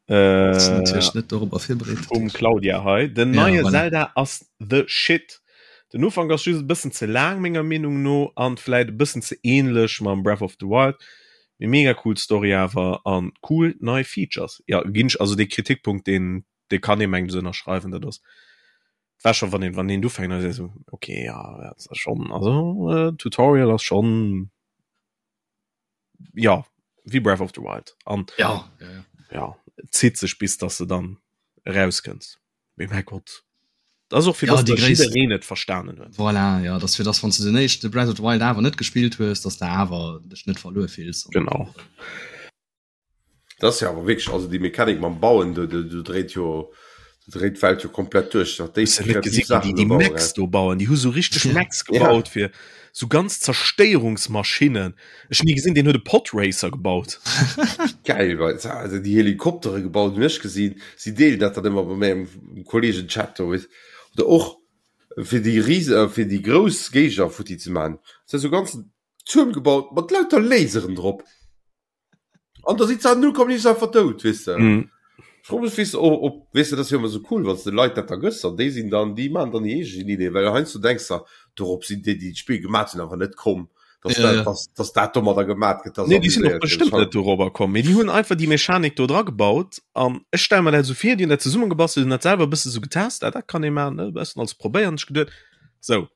Äh, Ass natierlech net dorobber virbereet. Vum Claudia hei. Den Ja, neie voilà. Zelda ass the shit. Den Ufank ass just e bëssen ze laang menger Meenung no an vläit e bëssen ze ähnlech mam Breath of the Wild. Mee mega cool Story awer an cool nei Features. Ja, ginn ech, also dee Kritikpunkt deen dee kann ee mengen ech ënnerschreiwen, dat ass war schon wann een wann een ufänkt ass esou okay ja dat ass schon also äh, Tutorial ass schon ja wie Breath of the Wild an ja, ja, ja. ja zitt sech bis dass se dann rauskënns mee mein Gott das ass och fir Ja, dass déi der gréisst- jiddereen et verstanen huet Voilà, ja, dass fir dass wann du den éischte Breath of the Wild awer net gespillt hues, dass de awer dech net verluer fills. Genau. Dat ass jo awer wierklech, also déi Mechanik mam Bauen do, do, do dréit jo, do dréit d'Welt jo komplett duerch, wat déi Hues de net kreativ gesinn, wéi Saachen déi do déi bauen, Mechs do bauen? Déi hu sou richteg Mechs Ja. gebaut fir sou ganz Zerstéierungsmaschinnen. Ech hunn ee gesinn, deen huet e Podracer gebaut. Geil, well also déi Helikoptere gebaut hunn ech gesinn, si deelen dat dann ëmmer bei mengem Kolleegenchat do, weess oder och fir déi Rise, fir déi grouss Géigner futti ze man, se hu sou ganzen Tuerm gebaut mat lauter Laseren drop. An da si se an 0, nichts einfach dout, weess de. Mm. Ech froe mech, weess de, ob, ob, weess de, dat ass jo ëmmer sou cool, wann s de Leit dat da gëss an déi sinn dann, déi maachen dann hir eegen Idee, well heiansdo denks de, dorop sinn déi, déi d'Spill gemat hunn, awer net komm, dass Ja, dat, ja. dass, dass dat domadder gemat gëtt, dat ass Nee, déi sinn och amuséiert. bestëmmt net dorobber komm, mee déi hunn einfach déi Mechanik do dra gebaut an ech stelle mer dat esou vir, déi hunn dat zesummegebastelt, hunn dat selwer e bësse sou getest, ah dat kann ee maachen, e bëssen als probéieren, ech geduet, sou,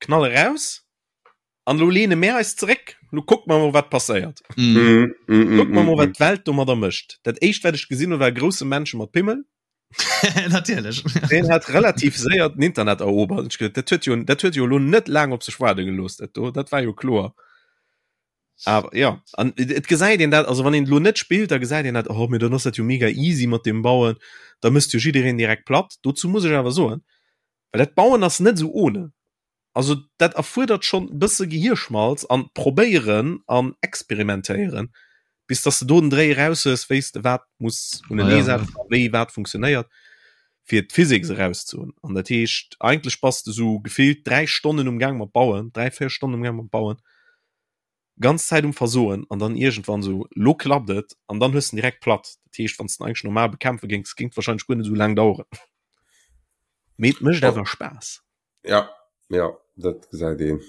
knall eraus. An lo lehne mär eis zeréck, lo kucke mer mol wat passéiert. Mm. Mm, mm, Kucke mer mol wat d'Welt domadder mécht. Dat éischt wat ech gesinn hu war grousse Männche mat Pimmel. Natierlech. Deen hat relativ séier den Internet erobert. Ech geduet, dat huet jo dat huet jo lo net laang op sech waarde gelooss dat do, dat war jo kloer. Awer ja an et gesäit een dat, also wann een lo net spillt, da gesäit een dat, oh mee dann ass dat jo mega easy mat deem Bauen, da mëss jo jiddereen direkt platt. Dozou muss ech awer soen, well dat Bauen ass net esou ohne. Also dat erfuerdert schonn e bësse Gehirschmalz an probéieren an experimentéieren, bis dass de do den Dréi eraus hues, wéi s de wat muss unenee setzen a wéi wat funktionéiert, fir d'Physics erauszehunn. An dat heescht, eigentlech bass de sou gefillt 3 Stonnen um Gaang mat bauen, 3, 4 Stonnen um Gaang mat bauen, ganz Zäit um Versoen an dann iergendwann sou, lo klappt et an dann hues de en direkt platt. Dat heescht, wann s de en eigentlech normal bekämpfe géings, géing et warscheinlech guer net esou laang daueren. Mee et mécht awer Spaass. Ja, ja, dat gesäit een.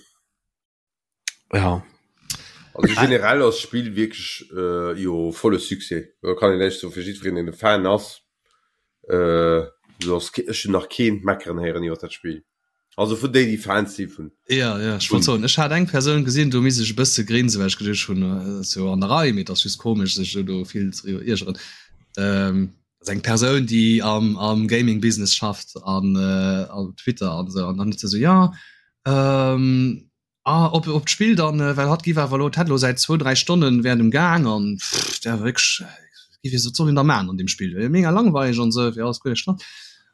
Ja. Also generell ass d'Spill wierklech äh, jo volle Succès. Da kann een echt so fir jiddwereen deen e Fan ass äh, so ass ech hunn nach keen meckeren héieren iwwer dat Spill. Also vun déi déi Fans si vun. Ja, ja, ech wollt soen, ech hat eng Persoun gesinn, do misst ech e bësse grinsen, well ech geduecht hunn, äh, ass jo an der Rei, mee et ass just komesch sech elo do vill ze iergeren. Ähm, ass eng Persoun déi am, am Gaming Business schafft an äh, an Twitter an sou an dann huet se sou ja ähm, ah, op, op d'Spill dann äh, well hatt giff awer lo, hätt lo säit zwou 3 Stonnen während dem Gaang an pff, der wierklech äh, giff wat soll een da man an dem Spill wär mega langweileg an sou fir alles guer net spannend.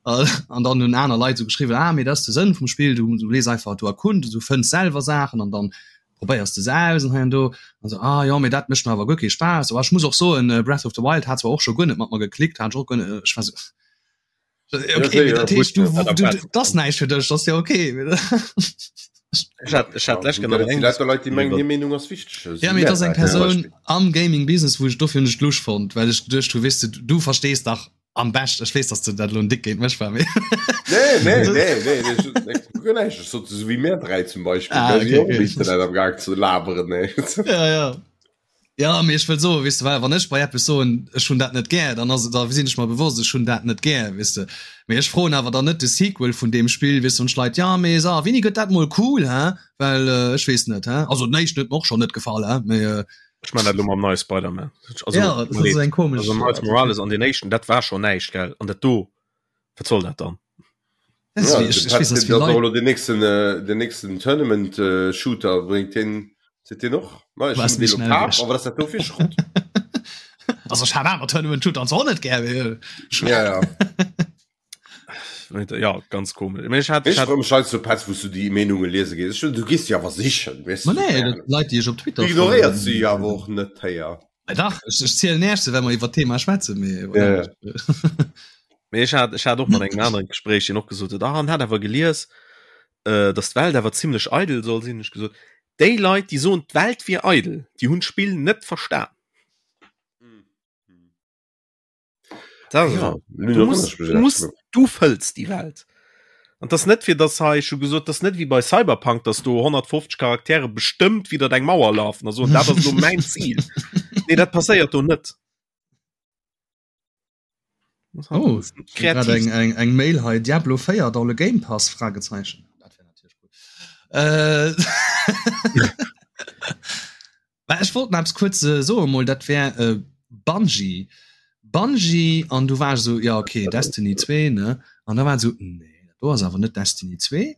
Äh, an dann hunn aner Leit sou geschriwwen ah mee dat ass de Sënn vum Spill, du, du lees einfach du erkund du fënns selwer Saachen an dann probéiers de se aus an hei an do an so ah jo mee dat mécht mer awer guer kee Spaass. Oh ech muss och soen Breath of the Wild hat zwar och scho guer net mat mer geklickt, hat ech och guer net, ech war so okay, mee dat heescht du du dat ass näischt fir dech, dat ass jo okay. Ech hat ech hat lech genau eng lauter Leit déi mengen hir Meenung ass wichteg. Ja mee et ass eng Persoun am Gaming Business wou ech dofir hunn ech d'Lusch fonnt, well ech geduecht hu weess de du verstees dach am bescht ech weess dass du dat lo dick géint mech war mee Nee, nee, nee, nee, nee, nee, nee, so, so wie mir drei zum Beispiel ah, okay, okay. okay. am Gang zu laberen nee. ja, ja. Ja mee ech wëll soen, weess de, well wann ech bei eppes soen, ech hunn dat net gär, dann ass et, da sinn ech mer bewosst, ech hunn dat net gär, weess de. Mee ech froen awer dann net de Sequel vun deem Spill, weess de, wann ech Leit, ja mee sa wéini gëtt dat mol cool, hä? Well ech weess net, hä? Also den éischten huet mer och schonn net gefall, hä? Mee Ech man dat lo mam neie Spider-Man. Also, ja, dat ass eng komesch. Also Miles Morales an den éischten, dat war schon näischt, gell? An dat do, wat soll dat dann? Ja, ich, ich weiß, dass Leit... den nächsten, äh, den nächsten Tournament äh, Shooter bringt den seet den och Ma, ich Was den kaf, aber das dat do Schrott. Also ich habe aner Tournament Shooter auch net gär. Ja, ja. Ja ganz komisch. Ich hat, ich hat... Scheiß so Patz, wo du die Meinungen lesen gehst. Du gehst ja was sichern. Weißt du, nee, Leute, die ich op Twitter ignoriert sie ja auch net ja. Dach ech zielen nächste wenn mer iwwer Thema schwätze mee ja, ja. Mee ech hat, ech hat och mat engem aneren Gespréich deen och gesot huet, ah, en hat awer gelies, äh, datt d'Welt awer zimlech eidel soll sinn. Ech gesot, déi Leit, déi soen, d'Welt wier eidel, déi hunn d'Spill net verstan. Das, ja, du, musst, du, musst, du fëlls die Welt. An das net fir das hei schon gesot das net wie bei Cyberpunk, dass du 150 Charaktere bestëmmt wieder eng Mauer laufen also dat ass so mein Ziel. Nee, dat passéiert do net. Oh, kreativ eng, eng, eng Mail hei Diablo 4 dans le Game Pass Fragezeichen. Dat wär natierlech cool. Äh, Mä ech wollt nach eppes kuerz soe mol, dat wär äh, Bungie. Bungie an du war ech esou, ja okay, Destiny 2, ne? An da war et esou, nee, dat do ass awer net Destiny 2.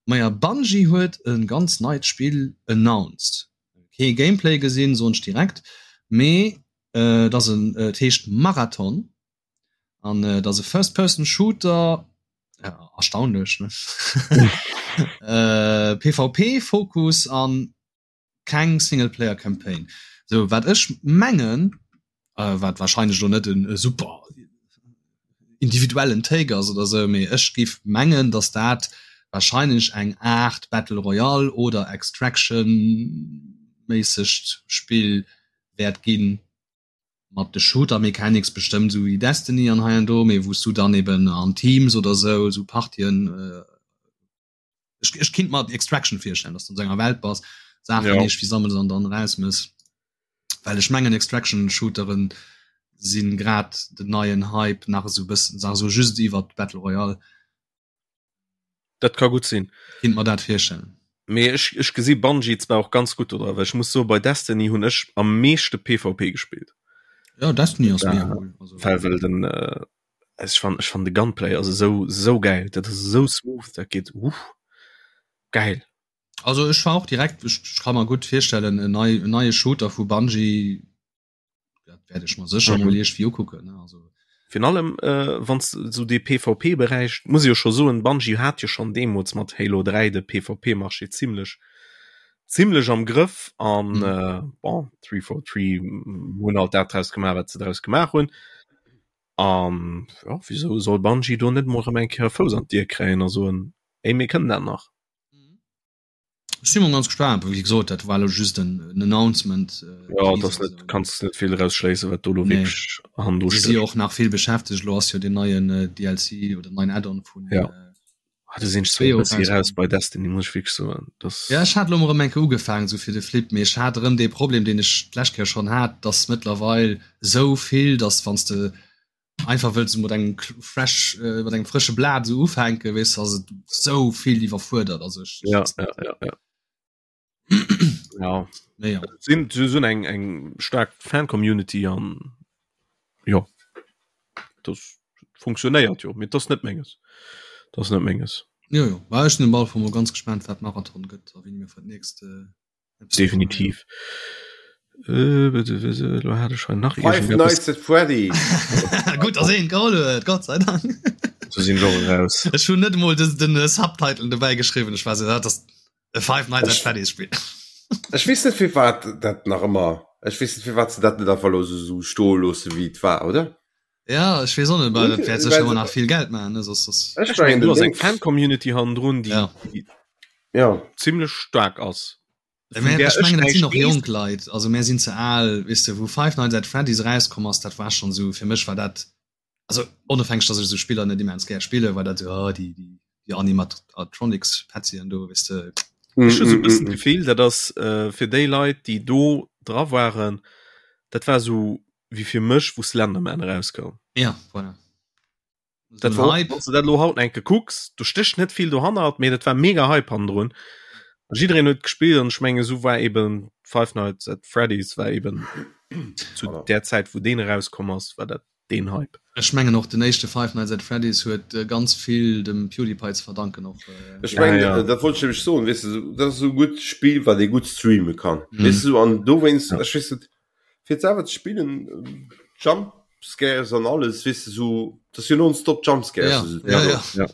Maja, Bungie huet e ganz neit Spill announced. Kee Gameplay gesinn, soen ech direkt, mee et ass en, et heescht Marathon an et ass e First-Person-Shooter, erstaunlech, ne? PvP-Fokus an keng Singleplayer Campaign. Sou wat ech mengen, äh, wat wahrscheinlech lo net en super individuellen Take ass oder sou, mee ech giff mengen, dass dat wahrscheinlech eng Aart Battle Royale oder Extraction méissegt Spill wäert ginn, mat de Shooter Mechanics bestëmmt sou wéi Destiny an hei an do, mee wou s du dann eben an Teams oder sou sou Partien äh, ech, ech kinnt mer Extraction virstellen, dass du an so enger Welt bass, Saachen ja. irgendwie sammels an dann rausmëss. Well ech mengen Extraction Shooteren sinn grad den neien Hype nach so bëssen sag so just iwwer Battle Royale. Dat ka gut sinn. Kinnt mer dat virstellen. Mee ech, ech gesi Bungie zwar och ganz gutt do dra, well ech muss soen, bei Destiny hunn ech am meeschte PvP gespillt. Ja, Destiny ass mega cool. Also, Well, well den, äh, ech fan, ech fan de Gunplay ass esou, esou geil, dat ass esou smooth, dat geet, uff, geil. Also ech war och direkt, ech, ech ka mer gutt virstellen, en nei, en neie Shooter vu Bungie, dat wäert ech mer sécher mol iergendwéi ukucken, ne, also. Virun allem äh, wann s de sou dee PvP-Beräich, muss ech jo scho soen, Bungie hat jo schonn deemools mat Halo 3 de PvP-Marché zimlech, zimlech am Grëff an mhm. äh, bon, 343 hunn halt dat draus gemaach, wat se draus gemaach hunn. An ja, wieso soll Bungie do net mol erëm eng Kéier Fouss an d'Dier kréien a soen, ey, mir kënnen dat nach. Ech si mol ganz gespaant, wéi gesot, dat war lo just en en Announcement. Äh, ja, das net, kannst net vill rausschléissen, wat do lo nee. wierklech hannendru steet. Si si och nach vill beschäftegt, lo ass jo den neien äh, DLC oder neien Add-on vun ja. äh, Ah, do sinn ech zwar e bëssi raus bei Destiny, muss ech wierklech soen. Das ja, ech hat lo mol erëm eng Kéier ugefaangen, sou fir de Flip, mee ech hat erëm dee Problem, deen ech d'lescht Kéier schonn hat, dass mëttlerweil sou vill, dass wann s de einfach wëlls du mat engem fresh äh, mat engem frësche Blat sou ufänke weess du, ass et sou vill iwwerfuerdert also ech, ja, ja, ja, ja. ja. Nee, ja. Sinn si hunn eng eng staark Fan-Community an jo das funktionéiert jo, mee das net menges. Das net menges. Jo jo, war ech den Ball vu ganz gespannt wat Marathon gëtt a wéi mir fir d'nächst äh, Definitiv. Äh, lo hat ech hei nach Five Nights at Freddy. Gutt, dass een geholl huet, Gott sei Dank. Do sinn ech och eraus. Ech hunn net emol den, den äh, Subtitle dobäi geschriwwen. Ech war so, dat ass e Five Nights at Freddy's Spiel. Ech weess net firwat dat nach ëmmer, ech weess net firwat se dat net einfach lo sou stoe loosse wéi et war, oder? Ja, ech weess och net, well dat wäert sécher ëmmer nach vill Geld maachen, ne? Soss, soss. Ech mengen, du ass eng Fan-Community hannendrun, déi, Ja. déi Ja. zimmlech staark ass. Mä Vun där ech ech mengen, dat näischt sinn och weess. jonk Leit. Also mär sinn ze al, weess de, wou Five Nights at Freddy's erauskomm ass, dat war schonn esou, fir mech war dat, also onofhängeg, datt ech esou Spiller net immens gär spillen, war dat esou, oh, déi, déi, déi Animatronics-Petzien do, weess de. Ech hu sou e bëssen d'Gefill, dat ass fir déi Leit, déi do dra waren, dat war esou wéi fir mech wou Slenderman erauskoum. Ja, voilà. Dat war och, wann du dat lo haut enke kucks, do stécht net vill dohannert, mee dat war mega Hype hannendrun. Jiddereen huet gespillt an ech menge sou war eben Five Nights at Freddy's war eben zu voilà. der Zäit wou deen erauskomm ass, war dat deen Hype. Ech mengen och den éischte Five Nights at Freddy's huet äh, ganz vill dem PewDiePie ze verdanken och. Äh, Ech mengen, ja, ja. dat wollt ech nämlech soen, weess du, dat ass esou gutt Spill, wat ee gutt streame kann. Mm. Weess du, an dowéinst, ja. ech weess net, fir et selwer ze spillen, Jump Scares an alles, weess du, sou, dat ass jo nonstop Jump Scares. Ja, ja, ja. ja.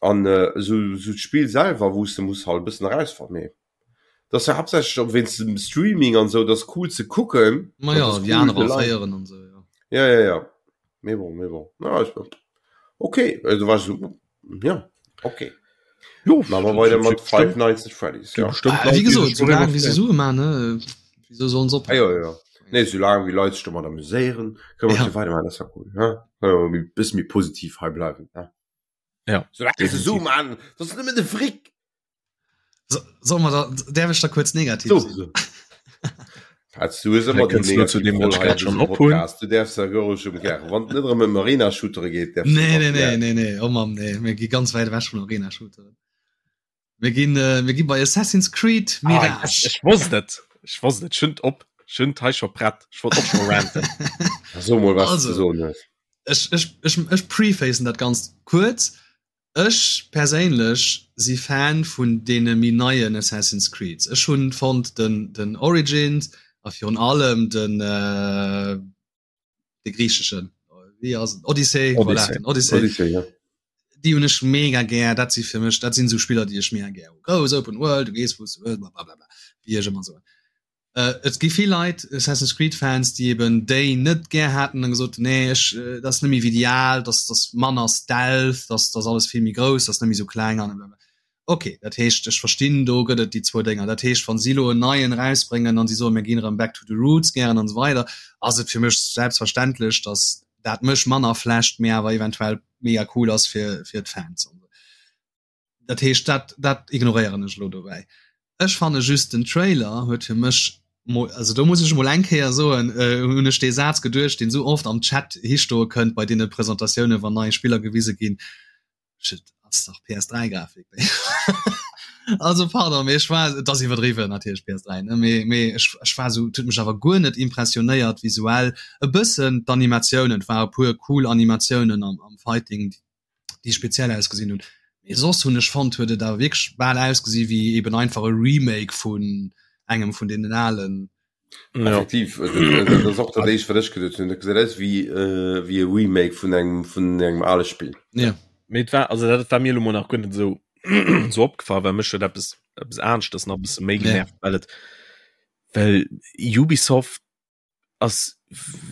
An äh, sou, sou d'Spill selwer, wou s de muss halt e bëssen erausfannen, mee dat ass ja haaptsächlech och wéinst dem Streaming an sou, dat ass cool ze kucken. Ma ja, cool déi aner erféieren an sou, ja. Ja, ja, ja. Mee bon, mee bon. Ja, ich, okay, also war so, ja, okay. Jo, Machen wir weiter mat Five Nights at Freddy's. Ja. Bestimmt ah, wie gesot, solange wie se Sue man, ne? Wieso sollen se op? Ah, ja, ja. Nee, solange wie Leute sich domat amüséieren, können wir ja. weitermachen, das war cool. Ja? Können wir bisschen méi positiv hei bleiwen. Ja. Ja. Solange se Sue man, das ist nëmmen de Frick. So, soll man da, darf ich da kurz negativ so, sein? So. Falls du es immer die zu dem Podcast schon opholen. Du darfst ja ruhig um gern. Wann net erëm ëm Arena Shootere geet, darfst nee, nee, nee, nee, nee, oh Mann, nee, mir gi ganz weit ewech vun Arena Shooteren. Mir ginn, äh, mir gi bei Assassin's Creed ah, Mirage. Ah, ech, ech wosst et. Ech wosst et. Schënnt op. Schënnt hei scho prett. Ech wollt och scho ranten. So mol was also, ze soen hues. Ech, ech, ech, ech prefacen dat ganz kuerz. Ech perséinlech si Fan vun deene méi neien Assassin's Creeds. Ech hunn fonnt den den Origins a virun allem den de griicheschen, wéi ass en, Odyssey, voilà, den Odyssey. Odyssey, ja. Déi hunn ech mega gär. Dat si fir mech, dat sinn esou Spiller, déi ech mega gär hunn. Grouss Open World, du gees wou s du wëlls, blablabla, wéi ech ëmmer soen. Et gi vill Leit, Assassin's Creed Fans, déi eben déi net gär haten an gesot hunn, nee ech, dat ass net méi wéi déi al, dat ass manner Stealth, dat ass alles vill méi grouss, dat ass net méi esou kleng an blablabla. Ok, dat heescht ech verstinn, do gëtt et déi zwou Dénger. Dat heescht wa si elo en neien erausbréngen an si soen, mir ginn erëm back to the roots gären an esou weider, ass et fir mech selbstverständlech, datt dat mech manner flasht, mee awer eventuell mega cool ass fir d'Fans. Dat heescht dat dat ignoréieren ech elo dobäi. Ech fanne just den Trailer huet fir mech mol, also do muss ech mol eng Kéier soen, hunn ech dee Saz geduecht, deen esou oft am Chat histoe kënnt bei deene Presentatioune wann nei Spiller gewise ginn, Shit, ass dach PS3 Grafik. Also pardon, mee ech war, et ass iwwerdriwwen natierlech PS3, ne, mee, mee ech, ech war esou, et huet mech awer guer net impressionéiert visuell. E bëssen d'Animatiounen, et war e puer cool Animatiounen am, am Fighting, déi speziell ausgesinn hunn. Mee soss hunn ech fonnt, huet et awer wierklech bal ausgesi wéi eben einfach e Remake vun engem vun deenen alen. Ja. Effektiv, dat ass och dat éischt wat ech geduet hunn. Dat gesäit aus wéi äh, wéi e Remake vun engem vun engem ale Spill. Ja. Mee et war also dat war mir elo mol nach guer net esou esou opgefall, well mech huet eppes eppes aneschters nach e bësse méi genervt, ja. well et well Ubisoft ass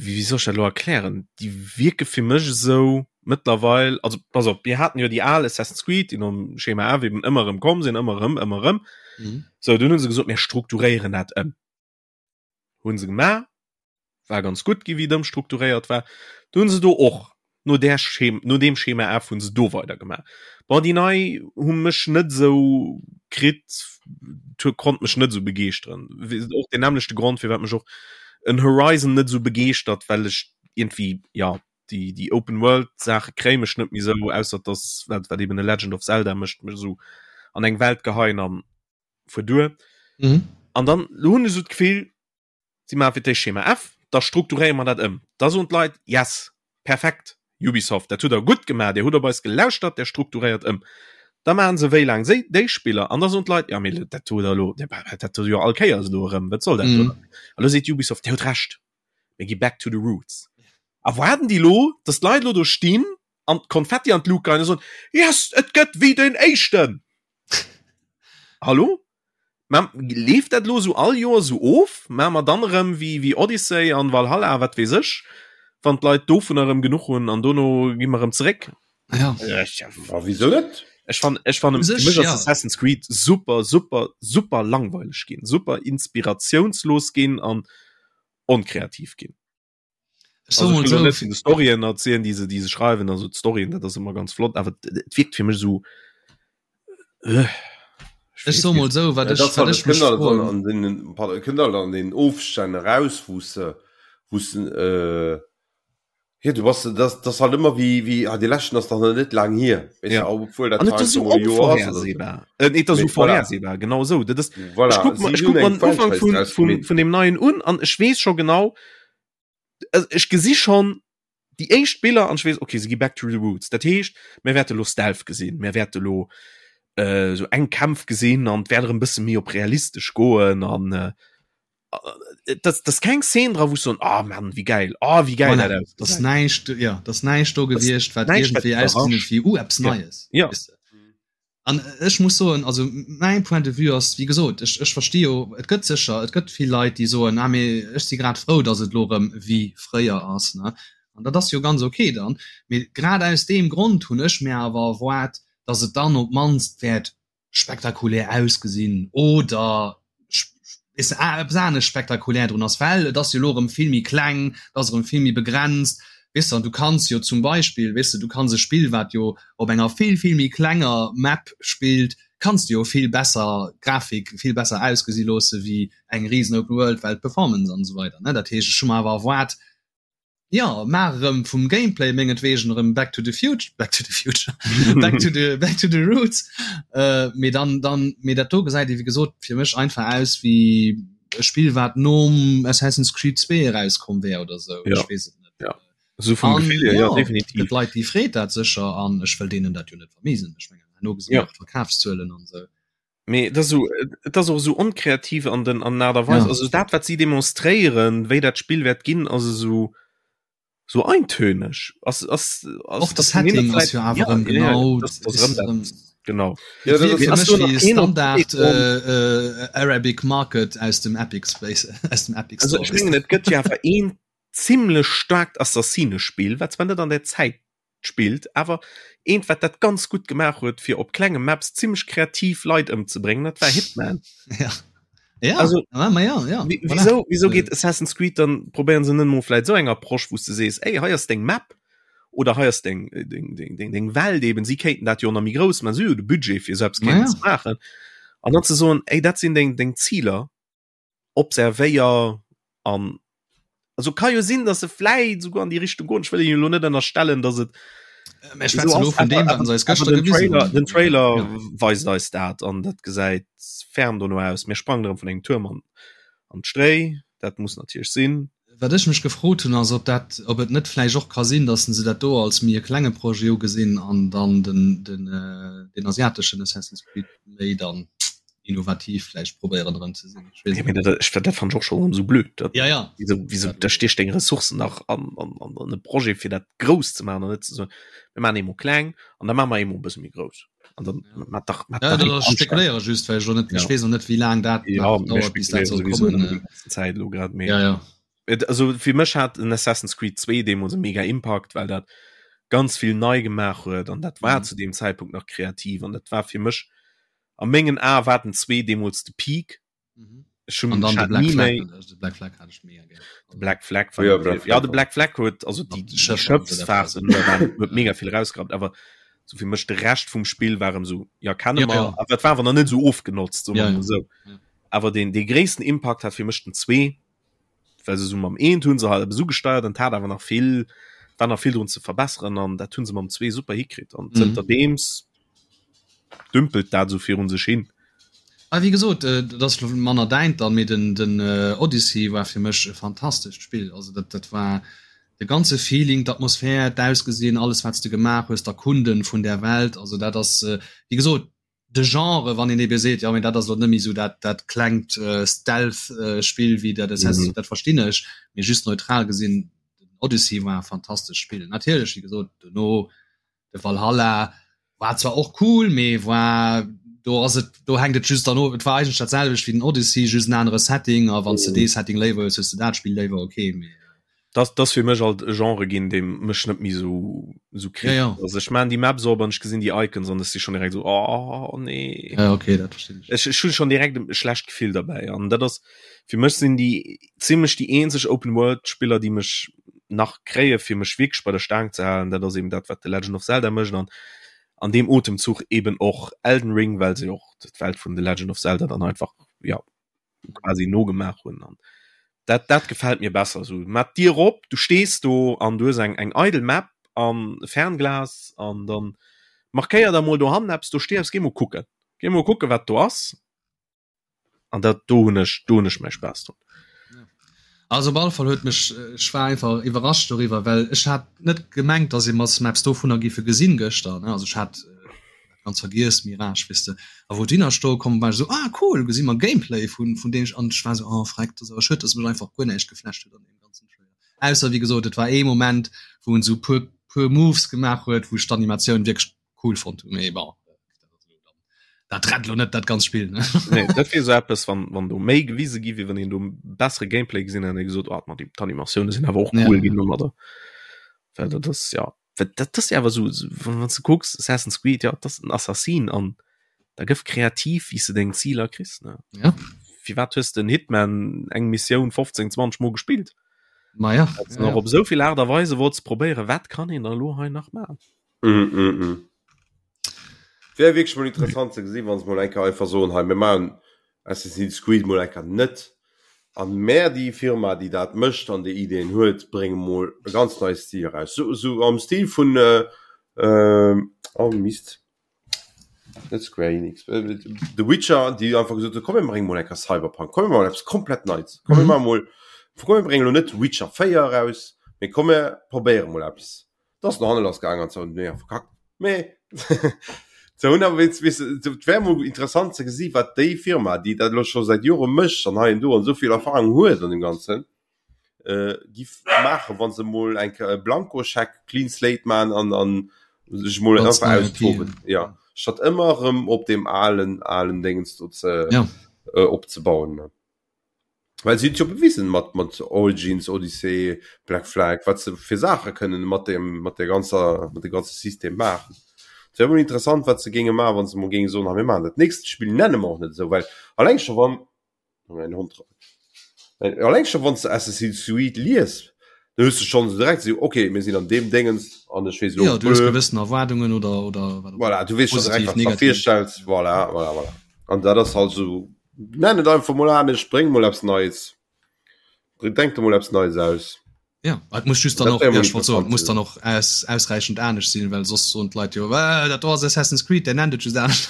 wéi soll ech dat elo erklären, déi wierke fir mech esou mëttlerweil, also pass op, mir haten jo déi al Assassin's Creed, déi nom Schema F eben ëmmer erëm komm sinn, ëmmer erëm, ëmmer erëm. Mhm. Sou, dunn hu se gesot, mir strukturéieren dat ëm. Hunn se gemaach, war ganz gutt gi wéi et ëmstrukturéiert war. Du hunn se do och no där Schem no deem Schema F hunn se do weider gemaach. Bon, déi nei hu mech net esou kritt, konnt mech net esou begeeschteren. Och deen nämmlechte Grond, firwat mech och en Horizon net esou begeeschtert, well ech iergendwéi, ja, déi déi Open World Saache kréie mech net méi esou, ausser dass wat wat eben e Legend of Zelda mécht, mech esou an eng Welt geheien an fuer duer. Mhm. An dann lo hunn ech esou d'Gefill, si maache fir d'éischt Schema F, da strukturéiere mer dat ëm. Da soen d'Leit, Yes, perfekt, Ubisoft, dat hutt der gutt gemaach, Dir hutt op eis gelauschtert, der strukturéiert ëm. Da maache se wéi laang séi déi Spiller an da soen d'Leit, Ja, mee dat hutt der elo, dat hutt jo all Kéiers elo erëm, wat soll dat do? A lo seet Ubisoft, Dir hutt Recht, mir gi back to the roots. A waarden déi elo, datt d'Leit elo do stinn an d'Konfetti an d'Luucht geien a soen, Yes, et gëtt wéi deen éischten! Hallo? Mä leeft dat elo esou all Joer esou of? Maache mer dann erëm wéi, wéi Odyssey an Valhalla a wat weess ech, wann d'Leit dovunner erëm genuch hunn an dono gi mer erëm zeréck? Ja. A wisou net? Ech fan, ech fannen, U sech, fir mech ass ja. Assassin's Creed super, super, super langweileg ginn, super inspiratiounslos ginn an onkreativ ginn. Ech soe mol Also, esou, net vun de Storyen erzielen, déi se, déi se schreiwen, also d'Storyen, dat ass ëmmer ganz flott, awer et wierkt fir mech esou äh, ech weess soe net. mol esou, wat Ja, ech, dat wat halt, ech et kënnt mech halt froen. an den, pardon, et kënnt halt an den Ofstänn eraus, wou se, wou se, äh, jo, du bass, das, das halt ëmmer wéi, wéi, ah, dee leschten ass dach nach net laang hier, weess Ja. de, obwuel dat An et ass heiansdo esou mol e Joer ass oder sou. onvorhersehbar. Äh, nee, et ass Mee esou voilà. vorhersehbar, genau esou. Dat ass, Voilà, ech kuck mer, si ech hunn kuck mer eng den Ufank Franchise vun, draus vun, gemeet. vun deem neien un an ech weess scho genau, also ech gesi schonn déi éischt Biller an ech weess, okay, se gi back to the roots. Dat heescht, mir wäerte lo Stealth gesinn, mir wäerte lo äh, sou eng Kämpf gesinn an et wäert erëm bësse méi op realistesch goen an äh, dat dat keng Szene dra wou ech soen, ah Mann, wéi gäil, ah wéi gäil Voilà, dat dat ass ausgesäit. näischt, ja, dat ass näischt do Dat ass gewiescht, wat näischt, wat iergendwéi ausgesinn huet iwwerrascht. wéi, uh, eppes Ja. Neies. Ja. Weess de. An ech muss soen, also mäin Point de vue ass, wéi gesot, ech, ech versti jo, et gëtt sécher, et gëtt vill Leit, déi soen, ah mee ech si grad frou, datt et elo erëm wéi fréier ass, ne. An dat ass jo ganz okay dann. Mee grad aus deem Grond hunn ech mir awer erwaart, datt et dann op d'mannst wäert spektakulär ausgesinn oder weess de, eppes anescht spektakulär drun ass, well et ass jo elo erëm vill méi kleng, et ass erëm vill méi begrenzt, weess de, an du kanns jo zum Beispill, weess de, du kanns e Spill, wat jo op enger vill, vill méi klenger Map spillt, kanns de jo vill besser Grafik, vill besser ausgesi loosse wéi eng risen Open World, well d'Performance an esou weider, ne. Dat heescht, ech hu mer awer erwaart, Jo, maach erëm vum Gameplay mengetwegen erëm Back to the Future, Back to the Future, Back to the, Back to the Roots. Äh, mee dann, dann, mee dat do gesäit wéi gesot fir mech einfach aus wéi e Spill wat nom Assassin's Creed 2 erauskomm wär oder sou. Ja. Ech weess et net. Ja. Sou vum An Gefill hier, ja, ja, definitiv. gëtt Leit déi freet dat sécher an ech wëll deenen dat jo net vermiesen. Ech mengen herno gesi Ja. mer och d'Verkafszuelen an sou. Mee et ass esou, et ass och esou onkreativ an den an Aart a Weis. Ja. Also dat wat si demonstréieren, wéi dat Spill wäert ginn, ass esou sou eintöneg. Ass ass ass Och de Setting ass jo awer erëm genau das, das erëm dat, genau. Ja, dat ass Fir ass mech do nach wéi keen Standard op äh, äh, Arabic Market aus dem Epic Space aus dem Epic Also Store. ech mengen et gëtt jo awer een zimlech staarkt Assassinespill, wat zwar net an der Zäit spillt, awer eent wat dat ganz gutt gemaach huet fir op klenge Maps zimmlech kreativ Leit ëmzebréngen, dat war Hitman. Ja. Ja, Also, ja, ma ja, ja, Wie- voilà. Wieso, wieso geet Assassin's Creed dann probéieren se net mol vläit sou eng Approche, wou s de sees, ey, hei ass deng Map oder hei ass deng, deng, deng, deng, deng Welt eben. Si kéinten dat jo nach méi grouss man, si hu jo de Budget fir sou eppes Ma kéinten ja. ze maachen. An dann ze soen, ey, dat sinn deng, deng Ziler. Observéier an also ka jo sinn, dass se vläit souguer an déi Richtung goen. Ech wëll hinnen elo net ënnerstellen, dass et. Äh, vun dem den Trailer ja. weist eis dat an dat gesäit ferm dono aus. Mir sprangen erëm vun engem Tuerm an an d'Stréi, dat muss natierlech sinn. Wat ech mech gefrot hunn ass, ob dat ob et net vläicht och ka sinn, datt se dat do als méi e klenge Projet ugesinn an dann den den äh, den asiateschen Assassin's Creed méi dann innovativ vläicht probéieren erëm ze sinn. Ech weess et net. Ech dat fand ech och schon erëm sou blöd. Dat, ja, ja. Wieso, wieso, da stiech deng Ressourcen nach an, an, an, an e Projet fir dat grouss ze maachen an net ze soen, mir maachen eemol kleng an da maache mer eemol e bësse méi grouss. An dann ja. mat dach mat ja, dach spekuléiere just well schon net ja. ich wees net wie lang dat ja, dauert, bis dat soll kommen ne? Zeit lo grad méi ja, ja. Et, also fir mech hat en Assassin's Creed 2 deemools e mega Impact, well dat ganz vill nei gemaach huet an dat war mhm. zu dem Zeitpunkt nach kreativ an dat war fir mech a mengen A war den 2 deemools de Peak Mhm. Ech hun dann de Black Flag, also de Black Flag hat ech mega gär. De Black Flag war ja, Black Flag, ja, de Black Flag huet also die, die Schëffsfahrten huet mega vill rausgehabt, awer so fir mech de Rescht vum Spill war so ja kann ja, ja. dat war awer noch net so ofgenotzt so ja, ja. so. Ja. Awer den de gréissten Impact hat fir mech den 2 well se so mam eent hunn se halt so gesteuert an hat awer nach vill war nach vill drun ze verbessern an dat hunn se mam 2 super hikritt an mhm. zënter deems dümpelt dat sou virun sech hin. Ah, wéi gesot, dat ass lo manner däint dann, mee den den Odyssey war fir mech e fantastescht Spill. Also dat dat war de ganze Feeling, d'Atmosphär, d'Ausgesinn, alles wat s de gemaach hues, d'Erkunden vun där Welt. Also dat ass wéi gesot de Genre, wann een ebe seet, jo mee dat ass lo net méi sou dat dat klengt Stealth Spill wéi dat Assassin's, dat verstinn ech, mee just neutral gesinn, den Odyssey war e fantastescht Spill. Natierlech, wéi gesot, dono De Valhalla war zwar och cool, mee war do ass et do hänkt et just dann of. Et war eigentlech dat selwecht wéi den Odyssey, just en anere Setting a wann s de dee Setting léiwer hues, hues de dat Spill léiwer, okay, mee. Dat ass fir mech alt e Genre ginn, dee mech net méi sou sou kritt. Ja, ja. Also ech maan déi Maps op an ech gesinn déi Icons an ech si schonn direkt sou, oh nee. Ja, okay, dat verstinn ech. Ech ech hunn schonn direkt e schlecht Gefill derbäi an dat ass fir mech sinn déi zimlech déi eenzeg Open World Spiller, déi mech nach kréie fir mech wierklech bei der Staang ze halen, dat ass eben dat wat The Legend of Zelda mécht an an deem Otemzuch eben och Elden Ring, well se och d'Welt vun The Legend of Zelda dann einfach ja quasi nogemaach hunn an dat dat gefält mir besser sou mat Dier op, du stees do an du hues eng eng eidel Map an Fernglas an dann markéier der mol dohannen eppes, do steet eppes, géi mol kucken, géi mol kucken wat do ass. An dat do hunn ech do hunn ech mäi Spaass drun. Also op alle Fall huet mech, ech war einfach iwwerrascht doriwwer, well ech hat net gemengt, datt ee mat Maps dovunner géife gesinn gëschter, ne. Also ech hat dat ganz vergiess, Mirage, weess de. A wou d'Inner stoe komm, war ech esou, ah cool, gesi mer Gameplay vun vun deem an ech war esou, oh freck, dat ass awer schued, datt mech einfach guer näischt geflasht huet an deem ganzen Trailer. Ausser wéi gesot, et war ee Moment, wou en esou puer puer Moves gemaach huet, wou ech d'Animatioun wierklech cool fonnt hunn, mee bon, dat rett lo net dat ganz Spill ne. Nee, dat wier sou eppes, wann, wann do méi gewise gi wier, wann een do bessere Gameplay gesinn hätt, hätt ee gesot, oh, ma déi d'Animatioune sinn awer och cool Ja. ginn domadder. Well dat ass ja, well dat ass ja awer sou, wann wann s de kucks, Assassin's Creed, ja, dat ass en Assassin an da gëff kreativ, wéi s de deng Ziler kriss, ne. Ja. Firwat hues de en Hitman eng Missioun 15, 20 Mol gespillt? Ma ja. Well s de nach op esou vill Aart a Weise wollts probéieren, wat kann een da lo hei nach maachen? Mm, mm, mm. Wär wierklech mol interessant ze gesinn, wann se mol eng Kéier einfach soen, hei mir maachen Assassin's Creed mol eng Kéier net an mär déi Firma déi dat mécht an déi Ideen huet, brénge mol e ganz neie Stil eraus. Sou sou am Stil vun oh Mist, net Square Enix, The Witcher, déi einfach gesot hunn, komm mir brénge mol eng Kéier Cyberpunk, komm mir maachen eppes komplett Neits, komm mir maache mol, komm mir bréngen elo net Witcher 4 eraus, mee komm mir probéiere mol eppes. Et ass no hanne lass gaangen an se hunn mega verkackt. Mee se hunn awer wéinst, weess de, et wär mol interessant ze gesi wat déi Firma, déi dat elo scho säit Jore mécht an hei an do an esou vill Erfahrung huet an deem Ganzen, giff maachen, wa se mol eng Kéier e Blankoscheck, clean slate maachen an an sech mol Ganz einfach nei IP. austoben. Jo, statt ëmmer erëm op deem alen, alen Déngens do ze Ja. opzebauen. Well si hunn et jo bewisen mat mat Origins, Odyssey, Black Flag, wat se fir Saache kënnen mat deem mat der ganzer mat dem ganze System maachen. Et wär mol interessant, wat se géinge maachen, wa se mol géinge soen, ha mir maachen dat nächst Spill nenne mer och net esou, well alleng scho wann, oh mäin Hond trëppelt, well alleng scho wann s de Assassin's Creed lies, da hues de schonn esou direkt esou, okay, mir sinn an deem Déngens an ech weess elo, Jo, du hues gewëssen Erwaardungen oder oder wat och voilà, du weess schonn direkt, positiv, wat s de der negativ. virstells, voilà, voilà, voilà. An dat ass halt esou Nenn et einfach mol anescht, bréng mol eppes Neies. Denk der mol eppes Neies aus. Ja, et muss just dann och, ja, ich wollt soen, muss dann och aus, ausreichend anescht sinn, well soss soen d'Leit jo, äh, dat do ass Assassin's Creed, der nennt et just anescht.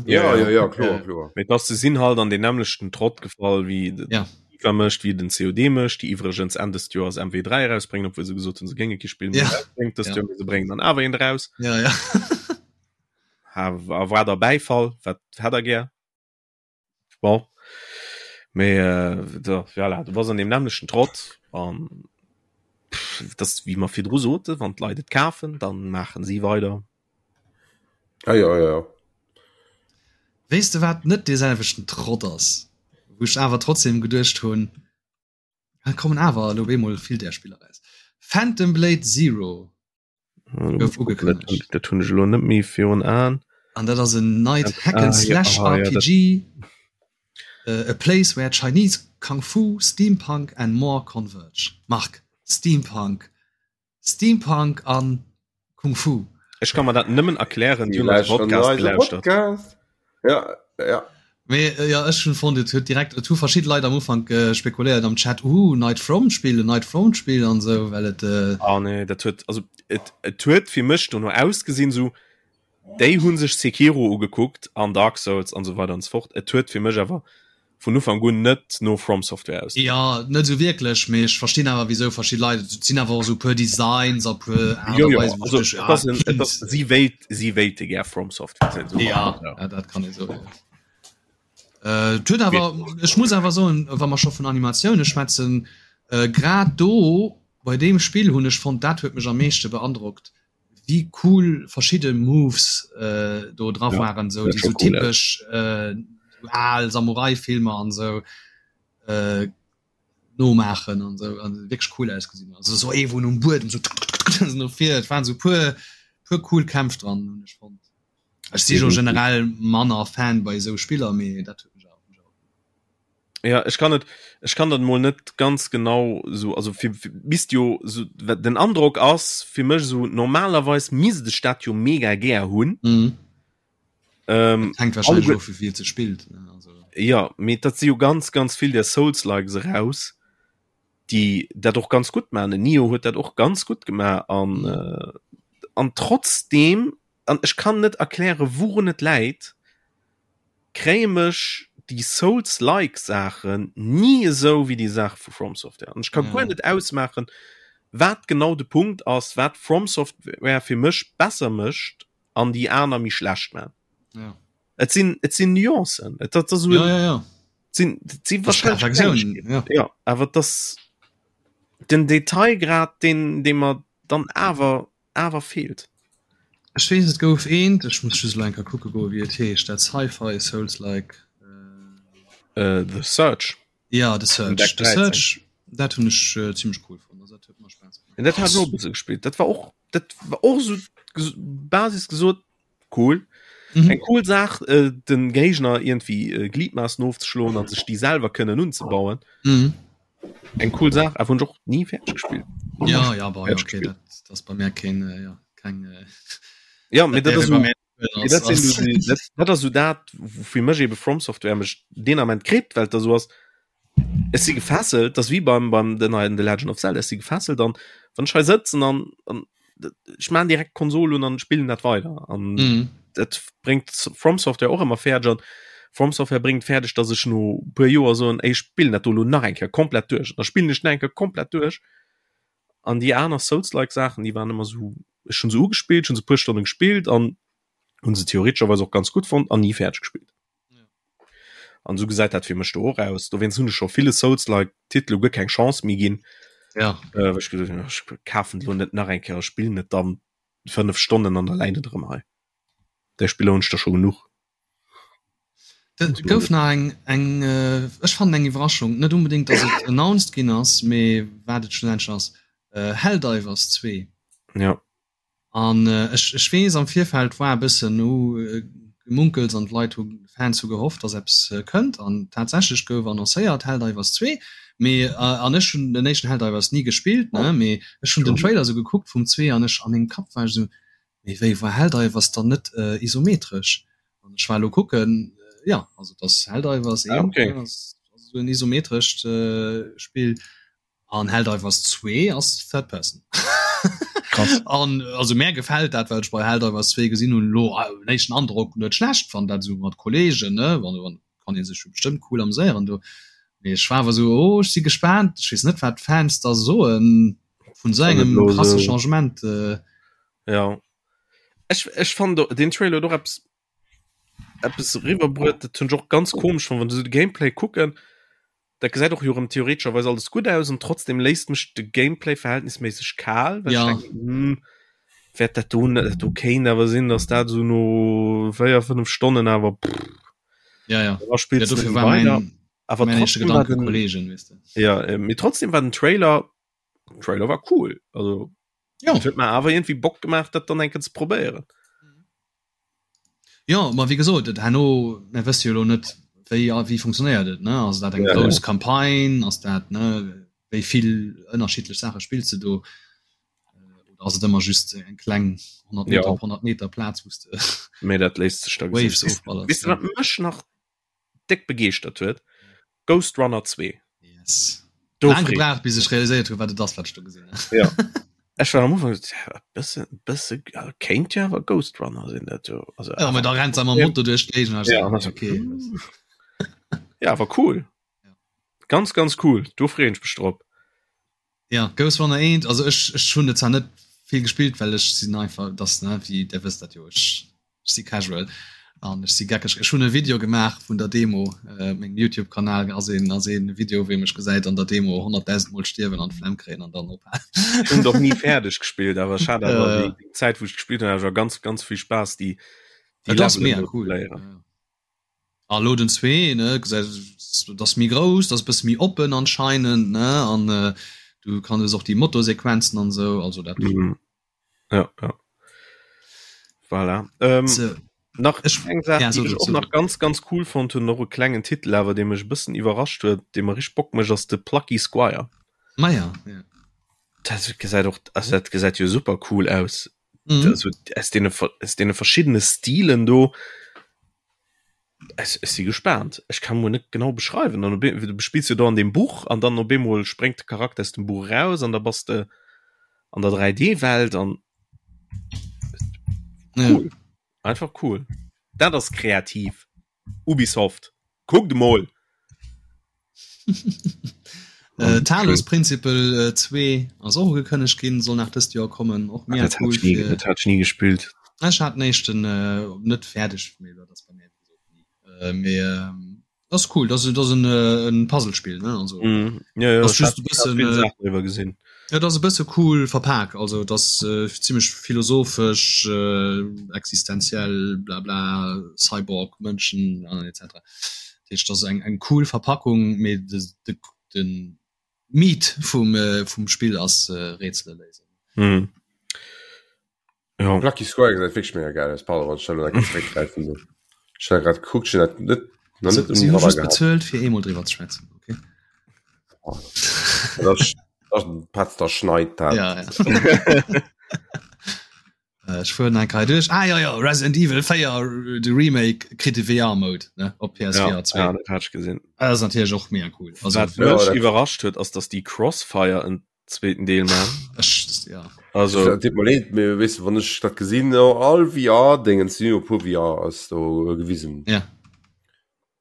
Ja, ja, ja, kloer, kloer. Mee dass se sinn halt an den nämmlechten Trott gefall wéi de Ja. FIFA mécht, wéi den COD mécht, déi iwwregens Enn des Joers MW3 erausbréngen, obwuel se gesot hunn, se géinge kee Spill méi Ja. erausbréngen dëst Ja. Joer, mee se bréngen dann awer eent eraus. Ja, ja. Ha, a war der Bäifall, wat hätt der gär? Bon. Mee äh, da, voilà, du bass an deem nämmlechten Trott an pff, das wéi mer virdru sote, wann d'Leit et kafen, dann maachen si weider. Ah, ja, ja, ja. Weess de wat net dee selwechten Trott ass, wou ech awer trotzdem geduecht hunn, et kommen awer elo op eemol vill där Spiller eraus, Phantom Blade Zero. Gouf ugekënnegt. Dat hunn ech elo net méi virun Aen. An dat ass en neit Hack and Slash RPG, a place where Chinese Kung Fu, Steampunk and more converge. Marc, Steampunk, Steampunk an Kung Fu. Ech ka mer dat nëmmen erklären, déi hunn eise Podcast gelauschtert. Ja, ja. Mee jo, ech hunn fonnt et huet direkt, et hu verschidde Leit am Ufank spekuléiert am Chat, uh neit From Spill, en neit From Spill an esou, well et. Ah nee, dat huet, also et et huet fir mech dono ausgesinn esou, déi hu sech Sekiro ugekuckt an Dark Souls an esou weider an esou fort. Et huet fir mech awer vun Ufank un net no From Software ausgesinn. Jo, net esou wierklech, mee ech verstinn awer wisou verschidde Leit, et sinn awer och esou e puer Designs a puer Aart a Weisen, wou ech duecht, ah, kinnt. Si wéilt, si wéilte gär From Software sinn, esou. Ja, ja, dat kann ee soen. Et huet awer, ech muss awer soen, wa mer scho vun Animatioune schwätzen, grad do bei deem Spill hunn ech fonnt, dat huet mech am meeschte beandrockt, wéi cool verschidde Moves do dra waren, esou déi sou typesch al Samurai-Filmer an esou nomaachen an esou an wierklech cool ausgesinn. Also sou ee wou um Buedem sou tuk tuk tuk no vir, et waren sou puer puer cool Kämpf dran hunn ech fonnt. Ech si jo generell manner Fan bei esou Spiller, mee dat huet mech awer. Ja ech kann et ech kann dat mol net ganz genau so also fir, fir, misst jo so, den Androck ass fir mech so normalerweis misst ech dat jo mega gär hunn. Mhm. Ähm, Hängt wahrscheinlich of wéi vill ze spillt ne also. Ja mee dat si jo ganz ganz vill der Souls-likes eraus déi dat och ganz gutt man. Den Nioh huet dat och ganz gutt gemaach an mhm. äh, an trotzdem an ech kann net erkläre wourun et läit, kréie mech déi Souls-like Saachen ni esou wéi déi Saache vu From Software. An ech ka guer net ausmaachen, wat genau de Punkt ass, wat From Software fir mech besser mécht an déi aner méi schlecht man. Ja. Et sinn, et sinn Nuancen. Et ass esou Ja, ja, ja. sinn, et si Das ist wahrscheinlech Perfektioun, Klengegkeeten. ja. Ja, awer dass den Detailgrad, deen, dee mer dann awer awer feelt. Ech weess et gouf eent, ech muss just elo eng Kéier kucke goen, wéi et heescht, dat Sci-Fi Souls-like. Äh, The Search. Ja, The Search. Deck The 13. Search, dat hunn ech äh, zimmlech cool fonnt. Also dat huet mer Spaass gemaach. En dat hat och e bësse gespillt. Dat war och, dat war och esou ges- Basis gesot cool. Mhm. Eng cool Saach, äh, den Géigner irgendwie äh, Gliedmaßen ofzeschloen an sech déi selwer kënnen unzebauen. Mhm. Eng cool Saach, awer hunn ech och ni fäerdeg gespillt. Ja, ja, boah, ja, Fäerdeg okay, gespillt. dat, dat ass bei mir keen, äh, ja, keng, äh, Ja, mee dat dat ass däerf ee bei esou, mir mee dat sinn so déi, dat, dat ass esou dat, wou fir mech ebe From Software mech deen Ament kritt, well et da sou ass, ech si gefesselt, dat ass wéi beim, beim den neien The Legend of Zelda, ech si gefesselt an wann ech hei sëtzen an, an ech maan direkt d'Konsol un an spillen dat weider an Mhm. dat bréngt From Software och ëmmer fäerdeg an From Software bréngt fäerdeg, dass ech no puer Joer soen, ey, ech spillen dat do elo nach eng Kéier komplett duerch an da spillen ech nach eng Kéier komplett duerch an déi aner Souls-like Saachen, déi waren ëmmer sou, ech hunn se ugespillt, ech hunn se puer Stonnen gespillt an hunn se theoretescherweis och ganz gutt fonnt an ni fäerdeg gespillt. An esou gesäit dat fir mech do och aus. Dowéinst hunn ech scho ville Souls-like Titele guer keng Chance méi ginn. Ja. Äh, well ech gesot hunn, ech kafen et lo net nach eng Kéier, ech spillen et dann 5 Stonnen an da läit et erëm hei. Där Spiller hunn ech der scho genuch. Et gouf nach eng, eng, ech fannen eng Iwwerraschung, net unbedéngt, datt et announced ginn ass, mee wat et schlussendlech ass, Helldivers 2. Ja. An ech, ech weess, am Virfeld war e bëssen u Gemunkels an d'Leit hu, Fans hu gehofft, datt eppes kënnt. An tatsächlech gouf annoncéiert Helldivers 2. Mee, an ech hunn den éischten Helldivers ni gespillt, ne, mee ech hunn den Trailer esou gekuckt vum 2 an ech, a mengem Kapp war ech esou, mee wéi, war Helldivers dann net isometresch? An ech war elo kucken, jo, also et ass Helldivers 1, Ah, okay. ass esou en isometrescht Spill. An Helldivers 2 ass Third Person. Krass. An also mär gefält dat, well ech bei Helldivers 2 gesinn hunn, elo en éischten Androck net schlecht, wann dat esou mat Kollegen, ne, wann wann kann ee sech jo bestëmmt cool ameséieren do. Mee ech war awer esou, oh ech si gespaant, ech weess net wat d'Fans da soen vun esou engem krasse Changement. Ja ech ech fannen do den Trailer huet och eppes eppes riwwerbruet, dat hunn ech och ganz komesch fonnt, wann du sou de Gameplay kucken, dat gesäit och jo rëm theoretescherweis alles gutt aus an trotzdem léisst mech de Gameplay verhältnisméisseg kal, well Ja. ech denken, hm, wäert dat do net, dat do kéint awer sinn, dass dat sou no 4, 5 Stonnen awer pff, Ja, ja. da Ja, spillst du dofir net war weider. mein, Awer mein éischte trotzdem war Gedanke den, Kollegen, weess de. ja, äh, mee trotzdem war den Trailer, Trailer war cool, also Ja. Et huet mer awer irgendwie Bock gemaach, dat dann enke ze probéieren. Ja, ma wéi gesot, et herno, mir wësse jo elo net, wéi a wéi funktionéiert et, ne? Ass dat eng Ja, grouss ja. Campagne? Ass dat, ne, wéi vill ënnerschiddlech Saache spills de do? Oder ass et ëmmer just eng kleng 100 Meter Ja. op 100 Meter Plaz, wou s de Mee dat léisst sech da gesinn. Waves ofballerst? Weess de, wat mech nach déck begeeschtert huet? Ghost Runner 2. Yes. Do Laang freet gebraucht, bis ech realiséiert hunn, wat et ass, wat ech do gesinn hunn. Ja. Ech war am Ufank so, ja, bësse, bësse, ja, kéint jo awer Ghost Runner sinn, dat do. Also, Ja, mä da rennt se mam Moto duerch d'Géigend. a Ja, so, also, okay. ja, awer cool. Ja. Ganz, ganz cool. Do freeën ech mech drop. Ja, Ghost Runner 1, also ech, ech hunn et zwar net vill gespillt, well ech sinn einfach, das, ne, wéi der wësst dat jo, ech, ech si casual an ech si geckeg. Ech hunn e Video gemaach vun der Demo, äh, op mengem YouTube-Kanal ass een, ass een Video, wéi mech gesäit an der Demo 100.000 Mol stierwen an d'Flemm kréien an dann ophalen. Ech hunn et och ni fäerdeg gespillt, awer ech hat awer Äh. déi, déi Zäit, wou ech gespillt hunn, hat ech awer ganz, ganz vill Spaass, déi, déi Et ass Levelen mega do ze cool. léieren. Ja. A lo den 2 ne gesäit dat ass méi grouss, dat ass e bësse méi oppen anscheinend ne an du kanns och déi Motosequenzen an esou, also dat. Mhm. Ja, ja. Voilà. Ähm, So, nach ech- eng Saach, ja, déi so ech du, och so nach du. ganz ganz cool fonnt hunn, och e klengen Titel awer dee mech e bëssen iwwerrascht huet, dee mer richteg Bock mécht, ass de Plucky Squire. Ma ja, ja. Dat gesäit och also dat gesäit jo super cool aus. Mhm. Also aus deene aus deene verschiddene Stilen do. Ech, ech si gespaant. Ech kann mol net genau beschreiwen. An op ee, du spills jo do an deem Buch an dann op eemol spréngt de Charakter aus dem Buch eraus an da bass de an der 3D-Welt an Ja. cool. Einfach cool. Dat ass kreativ. Ubisoft, kuckt emol! Äh, Talos Principle 2 ass och ugekënnegt ginn, soll nach dëst Joer kommen. Och mega Dat hat cool ech nie, fir dat hat ech nie gespillt. Ech hat den éischten äh, net fäerdeg, mee dat ass bei mir wéi gesot nie. Äh, mee ähm, dat ass cool, dat ass, dat ass en, äh, en Puzzlespill, ne? Also Mm, ja, ja, ass ech just hat, e ech hat bëssen vill äh, Saachen driwwer gesinn. Ja, dat ass e bësse cool verpak, also dat ass äh, zimmlech philosophesch, äh, existenziell, bla bla, Cyborg, Mënschen an etc. Dat heescht, dat ass eng eng cool Verpackung, mee de de de Meat vum äh, vum Spill ass äh, Rätsele léisen. Mm. Ja. Lucky Square gesäit wierklech mega geil aus. Pardon, wann ech da lo enke zeréckgräifen soll. Ech hat grad gekuckt, ech hunn dat net nach Si net um si hu Radar just gehat. bezuelt fir eemol driwwer ze schwätzen, okay? Dat ass dat ass den Petz, da schneit dat. Ja, ja. Äh, Ech fueren eng Kei duerch. Ah ja, ja, Resident Evil 4, de Remake kritt de VR-Mode ne, op PS4 Ja, 2. ja, dat hat ech gesinn. Dat ass natierlech och mega cool. Also, Wat Ja, mech dat- iwwerrascht huet, ass, dass déi Crossfire en zweeten Deel man. ech, ja. Also Dat deet mer leed, mee weess de, wann ech dat gesinn, all VR-Déngens sinn jo e puer VR ass do gewisen. Ja.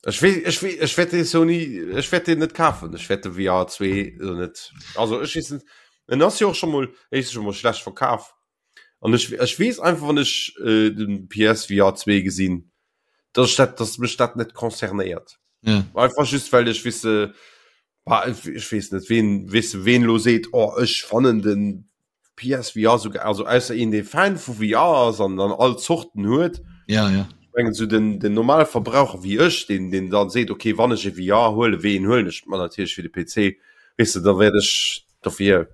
Ech weess, ech weess, ech wäert dee Sony, ech wäert deen net kafen. Ech wäert de VR 2 so net. Also ech weess net, en ass jo och scho mol, éischtens scho mol schlecht verkaf. An ech, ech weess einfach, wann ech äh, den PSVR 2 gesinn, dass ech dat, dass mech dat net concernéiert. Ja. Einfach just well ech wisse, bah, ech ech weess net, ween, weess de, ween lo seet, oh ech fannen den PSVR sou ge-, also ausser een dee Fan vu VR ass an dann all Zorten huet. Ja, ja. Ech mengen sou den, den normale Verbraucher wéi ech, deen, deen dann seet, okay, wann ech e VR huelen, wéi een huelen ech? Ma natierlech fir de PC, weess de, da wäert ech dofir.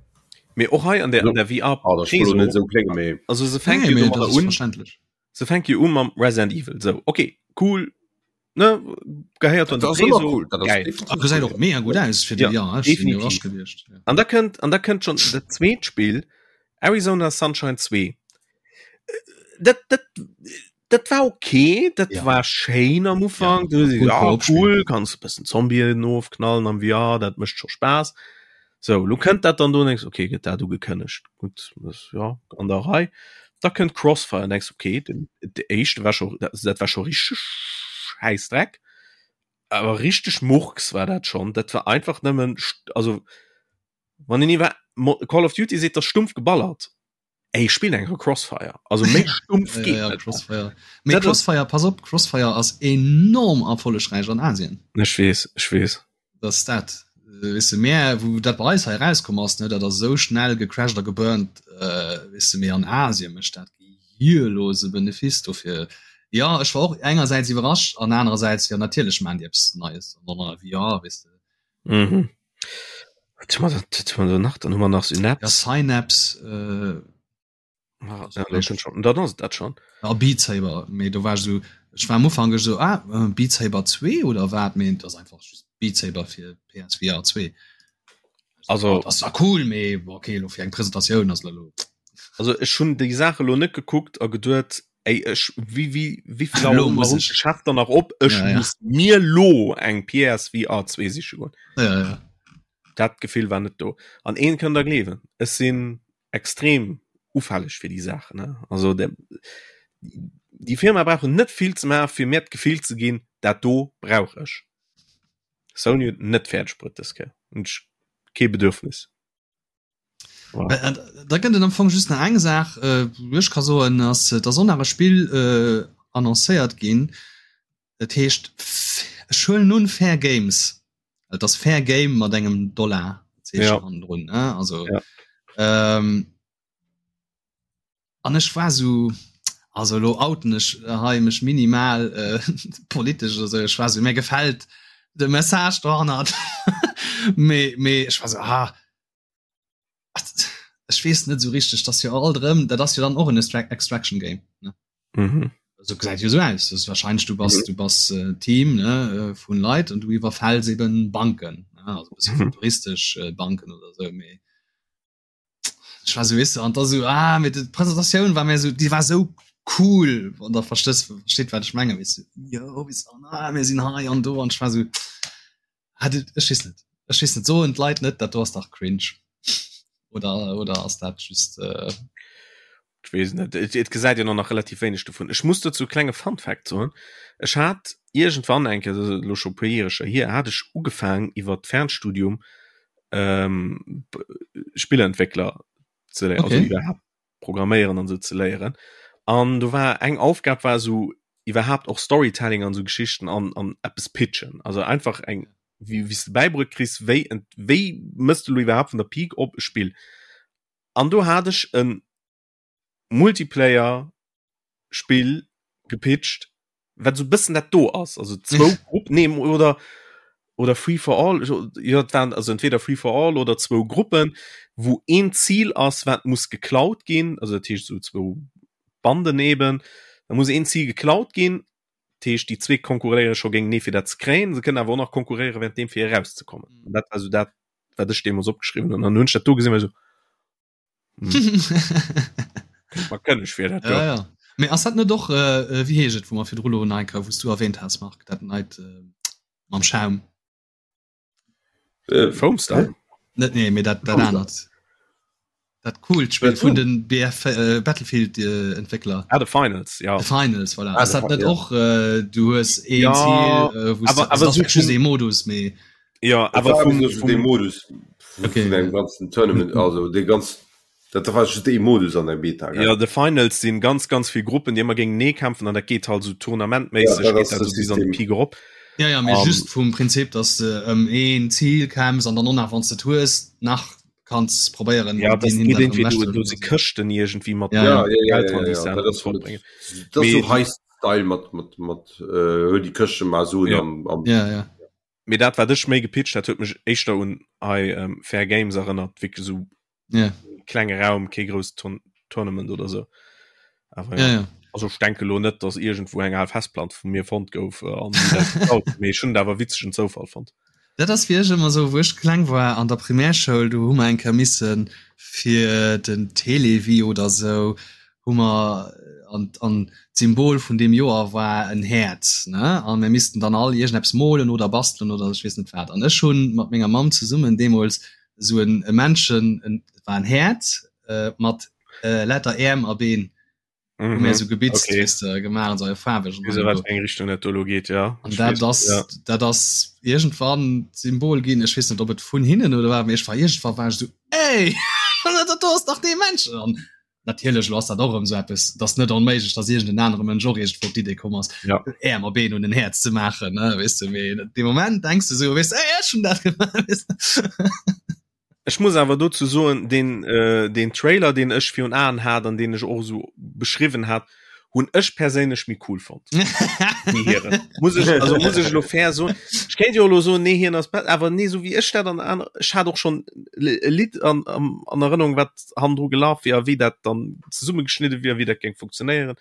Mee och hei an der, an der VR Ah, dat soll net sou kléngen, mee. Also se fänkt Nee, jo mee domadder dat ass un, verständlech. se fänkt jo u mam Resident Evil. Sou, okay, cool, ne, gehéiert an Dat de ass ëmmer Preso, cool, dat ass geil. definitiv Ah, gesäit cool. och mega gutt aus fir de Ja, VR. Ech sinn definitiv. iwwerrascht gewiescht. Ja. An da kënnt, an da kënnt schon dat zweet Spill, Arizona Sunshine 2. Dat, dat, dat war okay, dat Ja. war schéin am Ufank. Ja, Du, cool ja, Koop-Spiel. cool, kanns e bëssen Zombien ofknallen am VR, dat mécht scho Spaass. Sou, lo kënnt dat dann do an denkst, okay, gëtt dat ugekënnegt? Gutt, das, ja, an der Rei. Da kënnt Crossfire an denkst, okay, den, de éischte war scho, dat, dat war scho richteg Schäissdreck. Awer richteg Murks war dat schon. Dat war einfach nëmmen, also wann een iwwer Call of Duty seet, das stumpf geballert. Ey, spill eng Crossfire. Also méi stumpf geht ja, ja, Crossfire. Mee Crossfire, pass op, Crossfire ass enorm erfollegräich an Asien. Ech weess, ech weess. Das dat. Weess de, mä wou dat bei eis hei erauskomm ass, ne, dat ass esou schnell gecrashed a geburnt, äh, weess de, mee an Asien mécht dat gehirlose Benefice dofir. Ja, ech war och engersäits iwwerrascht an anerersäits, ja natierlech maan déi eppes Neies an dann VR, weess de. Mhm. Was haben wir da, was haben wir da nach? Dann haben wir nach Synapse. Ja, Synapse. Äh, ah, ja, das schon. Dann ass dat schon. Ja, Beat Saber, mee do war so ech war am Ufank so ah, äh, Beat Saber 2 oder wat mee das einfach just Beat Saber fir PSVR 2. Also das war cool mee okay lo fir eng Präsentatioun ass lo. Also ech hunn déi Sache lo net gekuckt a geduet ey ech wie wie wie vill Lo muss ech. Geschäft dann nach op ech Ja, ja. muss mir lo eng PSVR 2 siche goen. Ja, ja. Dat Gefill war net do. An een kënnt der gleewen, ech sinn extrem ufälleg fir déi Saachen ne. Also der déi Firma brauchen net vill ze maachen fir mir d'Gefill ze ginn, dat do brauch ech. Sony huet net fäerdeg bruet dës Kéier. Hunn ech kee Bedürfnis. Voilà. Äh, da gëtt et am Fong just nach eng Saach, äh, wou ech ka soen, ass, dass och nach e Spill äh, annoncéiert ginn. Dat heescht, ech huelen un Fair Games. Et ass Fair Game mat engem Dollar Zeechen ja. hannendrun, ne? Also ja. ähm, An ech war sou, also elo outen ech hei mech minimal äh, politesch oder sou, ech war sou, mir gefält de Message dohannert. Mee, mee ech war sou, ah, ech weess net sou richteg, dat ass jo alt erëm, dat ass jo dann och en Extraction Game, ne? Mhm. Also gesäit jo sou aus, das wahrscheinlich du bass, mhm. du bass äh, Team ne, äh, vun Leit und du iwwerfäls eben Banken, ne? also bësse mhm. futuristesch äh, Banken oder sou, mee Ech war sou, weess de, an da sou, ah, mee d'Presentatioun war mir sou, déi war sou cool, wann der verstëss, versteet wat ech mengen, weess de, jo, weess de, an ah, mir sinn hei an do, an ech war sou, ah, dat, ech weess net, ech weess net, soen d'Leit net, dat do ass dach cringe, oder, oder ass dat just, äh. Ech weess net, et, et gesäit een och nach relativ wéineg dovun. Ech muss dozou e klenge Fun Fact soen, Ech hat iergendwann eng Kéier, dat ass elo scho e puer Järecher hier, hat ech ugefaang iwwer d'Fernstudium ähm, Spilleentwéckler ze léieren, also Okay. iwwerhaapt Programméieren an esou ze léieren. An do war eng Aufgab war esou iwwerhaapt och Storytelling an esou Geschichten an, an eppes pitchen. Also einfach eng, wéi, wéi s de bäibruet kriss, wéi, wéi mëss de elo iwwerhaapt vun der Pik op e Spill. An do hat ech e Multiplayer Spill gepitcht, wat sou bëssen dat do ass, also zwou Gruppen, nee, oder oder Free for all, jo et waren also entweder Free for all oder zwou Gruppen, wou een Zil ass, wat muss geklaut ginn, also dat heescht sou zwou Banden eben, da muss een Zil geklaut ginn, dat heescht déi zwee konkurréiere scho géintenee fir dat ze kréien, se kënnen awer och nach konkurréiere während deem fir erauszekommen. An dat war sou dat wat ech deemools opgeschriwwen hunn, an dann hunn ech dat do gesinn, war ech sou, hm. Ma kënn ech fir dat ja, ja. Mee ass dat net och äh, äh, wéi heescht et, wou mer virdru lo nach eng Kéier, wou s du erwähnt has, Marc, dat neit äh, mam Schaum? Äh, Foamstar? Net nee, mee dat dat anert. Dat coolt Spill vun den BF äh, Battlefield äh, Entwickler. Ah, The Finals, ja. The Finals, voilà. Ah, Ass dat net ja. och äh, du hues een Ja, Ziel, äh, wou s awer- du, also awer das so ass just vum- ee Modus, mee Ja, awer awer vum, vum, vum dem vum Modus Okay, vun ja. engem ganzen Tournament also de ganz dat war just ee Modus an der Beta gell? Ja, The Finals sinn ganz ganz vill Gruppen, déi ëmmer géintenee kämpfen an dat geet halt sou tournamentméisseg Ja, dat geet ass dat de sou bis an de System. Peak erop. Ja, ja, mee Um, just vum Prinzip, dass de ëm een Zil kämpfs an dann och nach, wann s de et hues, nach kanns probéieren, Ja, das deen geht hinteren irgendwie ewech do, ze do si huelen. Këschten irgendwie mat Ja, ja, ja. ja, ja, Geld ja, dran, déi ja, s de dat aner ass kanns fortbréngen. dat ass Mee so Heist Style mat mat mat äh, huel déi Këschte mar so Ja. am, am Ja, ja. Mee dat wat ech méi gepitcht hat, huet mech éischter un hei ähm, Fair Games erënnert, wierklech sou Ja, klenge Raum, kee grousst Tourn Tournament oder sou. Awer ja. ja, ja. Also ech denke lo net, dass iergendwou eng al Festplatt vu mir fonnt gouf äh, an déi dat geklaut huet, mee ech hunn et awer witzegen Zoufall fonnt. Dat ass wéi ech ëmmer sou, wou ech kleng war an der Primärschoul, do hu mer eng Kéier misse fir den Télévie oder sou hu mer an an d'Symbol vun deem Joer war en Häerz, ne, a mir missten dann all iergendeppes molen oder bastelen oder ech weess net wat. An ech hu mat menger Mamm zesummen deemools. esou en e Männchen, en et war en Häerz äh, mat äh, lauter Äerm a Been mhm. mehr so gebitzt okay. weißt du, gemacht so faarweg wat eng Richtung net do geht ja an dat das ja. dat das irgendwann Symbol ginn ech weess net ob et vun hinnen oder war ich war irgendwann war ich so ey dat do ass dach dee Mensch an natierlech lo ass dat och erëm sou eppes dat ass net onméiglech dass iergend en anere Mënsch och iergendwou op d'Idee komm ass ja. Äerm a Been un en Häerz ze maachen ne weess du mee dee Moment denkst du sou weess du ey ech hunn dat gemaach weess du. Ech muss awer dozou soen, deen, äh, deen Trailer, deen ech virun Aen hat an deen ech och esou beschriwwen hat, hunn ech perséinlech méi cool fonnt. Wéi hiren. Muss ech, also muss ech elo fair soen. Ech kéint jo elo soen, nee, hien ass besser, awer nee, esou wéi ech dat an aner, ech hat och schonn e Lidd an, an, an Erënnerung, wat hannendru gelaf wier a wéi dat dann zesummegeschnidde wier, wéi dat géing funktionéieren.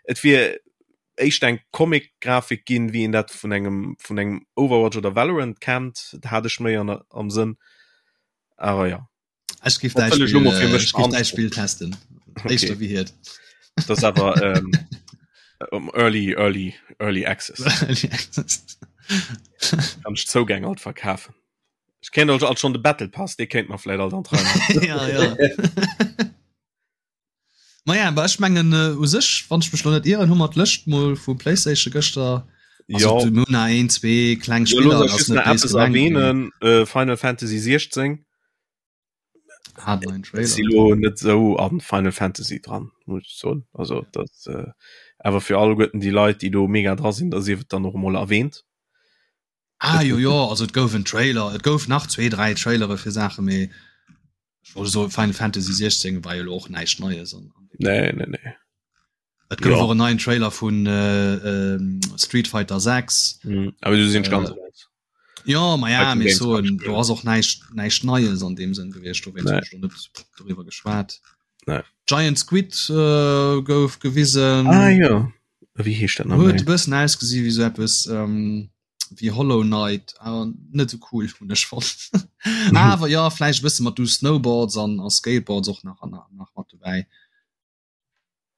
Et wier éischt eng Comic-Grafik ginn, wéi een dat vun engem, vun engem Overwatch oder Valorant kennt, dat hat ech méi an, am Sënn. Awer jo. Ech géif däi Spill, äh, ech géif däi Spill testen. Okay. Éischter wéi hiert. Das awer ähm, um early early early access. Early access. Kann ech Zougäng alt verkafen. Ech kéint alt alt schon de Battle Pass, dee kéint mer vläit alt antreiwen. ja, ja. Maja, awer ech mengen äh, u sech, wann ech mech lo net ieren, hu mer d'Lëscht mol vu PlayStation gëschter. Also, Ja. du mir hunn nach een, zwee kleng Ja, Spiller, looss dat ech ass just net nach béis eppes gemengt, mee erwähnen, äh, Final Fantasy 16. hat neien Ech si Trailer. lo net sou an Final Fantasy dran, muss ech soen. Also dat äh, awer fir alleguerten déi Leit, déi do mega dra sinn, da sief et dann och emol erwähnt. Ah jo jo, also et gouf en Trailer, et gouf nach zwee, dräi Trailere fir Saache, mee ech wollt soen Final Fantasy 16 war jo lo och näischt Neies an an deem Nee, nee, nee. Et gouf Ja. och en neien Trailer vun äh, ähm, Street Fighter 6. Mhm. Awer du sinn Äh, ganz raus. Ja, ma ja, Fighting mee Games kann soen, ich do spillen. ass och näischt näischt Neies an deem Sënn gewiescht, dowéinst Nee. hunn ech lo net doriwwer geschwat. Nee. Giant Squid äh, gouf gewisen. Ah ja. Wéi heescht dat nach Huet méi? e bëssen ausgesi wéi sou eppes ähm, wéi Hollow Knight, awer net sou cool hunn ech fonnt. Awer ja, vläicht e bësse mat du Snowboards an a Skateboards och nach an nach mat dobäi.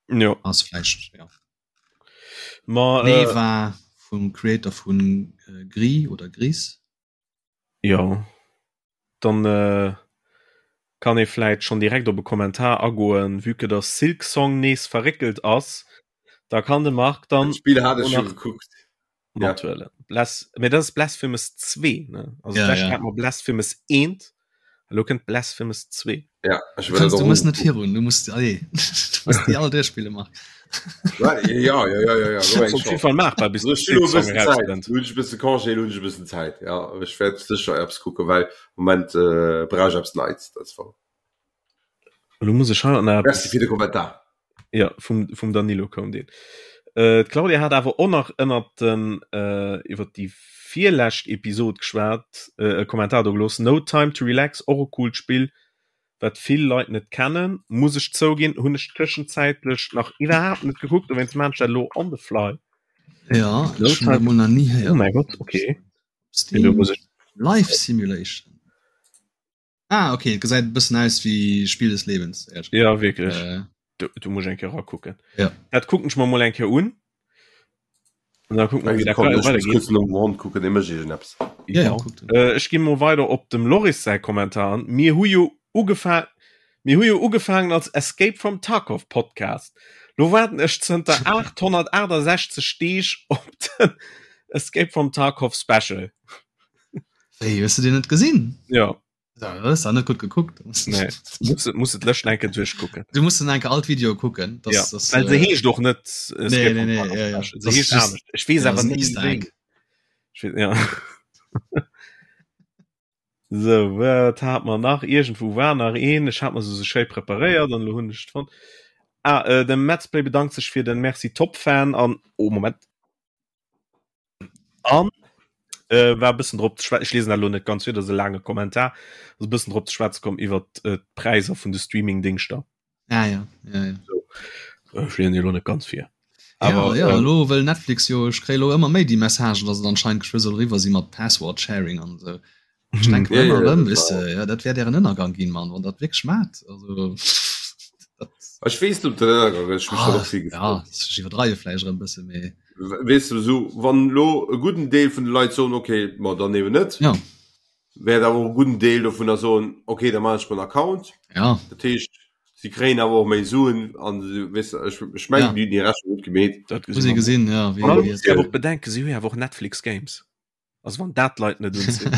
Jo. Ass vläicht ja. Ma Nee, äh, war vum Creator vun äh, Gris oder Gris. Jo, dann äh, kann ee vläit schonn direkt op e Kommentar agoen, vue que dass Silksong nees verréckelt ass, da kann de Marc dann Dat Spill hat ech och scho nach gekuckt. Ja. mathuelen. Blas mee dat ass Blasphemous 2, ne? Also Ja, d'lescht ja. hat mer Blasphemous 1, elo kënnt Blasphemous 2. Ja, ech Du wëll kannst, dat du och muss net ukucken. virun, du musst allez, du musst déi all duerchspille Marc. Ja, ja, ja, ja, ja, Ass op jeden Fall maachbar bis Also, ech hunn elo e Silksong bëssen Zäit. erauskënnt. Lo hunn ech e bësse Congé, lo hunn ech e bëssen Zäit. Ja, ech wäert sécher eppes kucken, well Moment äh, brauch ech eppes Neits, dat war. Elo muss ech hei an Merci eppes fir de Kommentar. Ja, vum, vum Danilo koum deen. Äh, d'Claudia hat awer och nach ënnert den, äh, iwwer déi virlescht Episod geschwat, äh, e Kommentar do gelooss, No Time to Relax, och e coolt Spill, wat vill Leit net kennen, muss ech zouginn, hunn ech tëschenzäitlech nach iwwerhaapt net gekuckt, dowéinst maan ech dat elo on the fly. Ja, No ech hunn dat Time, mol nach ni oh héieren. mäi Gott, okay. Steam Muss ech Life Simulation. Ah, okay, et gesäit e bëssen aus wéi Spiel des Lebens. ehrlich Ja, gesagt. wierklech. Äh, Du, du muss eng Kéier rakucken. Ja. Dat kucken ech mer mol eng Kéier un. An da kucken mer, wéi dat Komm, ech muss weidergeet. kuerz nom Hond kucken, dee mécht iergendeppes. Ja, ja, Ja. kuck du. Äh, ech gi mol weider op dem Loris säi Kommentar an. Mir hu jo ugefa mir hu jo ugefaangen als Escape from Tarkov Podcast. Lo waarden ech zënter 868 Deeg op den Escape from Tarkov Special. Wéi, hues du deen net gesinn? Ja. Ja, du hues da net gutt gekuckt. Nee. Muss, muss et lëscht enke duerchkucken. Du musst den enke all d'Video kucken. Das, Ja. das, Well se äh, heescht och net Nee, Escape nee, from nee, Tarkov ja, ja. Special. Se Das heescht ist just- anescht. Ech weess ja, awer das ist ein net Easter wéi. Egg. Ech weess, ja. So, wat hat mer nach? Iergendwou war nach een. Ech hat mer se sou schéi preparéiert an elo hunn ech et fonnt. Ah, äh, de Metzplay bedankt sech fir den Merci Top-Fan an, oh Moment. An äh, war e bëssen drop ze schwätzen, ech liesen dat elo net ganz vir, dat ass e laange Kommentar, ass e bëssen drop ze schwätze komm iwwer äh, d'Präisser vun de Streaming-Dingschter. Ah, ja, ja, ja. So, ech liesen déi elo net ganz vir. Aber, ja, ja, ähm, elo wëll Netflix jo, ech kréie lo ëmmer méi déi Messagen, dass et anscheinend geschwë soll eriwwer si mat Password-Sharing an esou. Ech denke Ja, ëmmer ja, erëm, dat weess war de, ja, dat wäert ären Ënnergang ginn, Mann, wann dat wierklech maacht. Also, dat, Ech weess net, ob dat Ënnergang ass, ech mech dat ah, och vill ja, gefrot. ech iwwerdreiwe vläicht erëm e bësse, mee Weess de, esou, wann elo e gudden Deel vun de Leit soen, okay, ma dann eben net. ja. Wäert awer och e gudden Deel dovunner soen, okay, da maachen ech mer en Account. Ja. Dat heescht, si kréien awer och méi Suen an weess de, ech, ech mengen, Ja. déi hunn déi Rechnung gutt gemeet. Dat Muss ee gesinn, ja, wéi, An wéi muss awer och bedenken, si hu jo awer och Netflix Games. Also wann dat d'Leit net unzitt,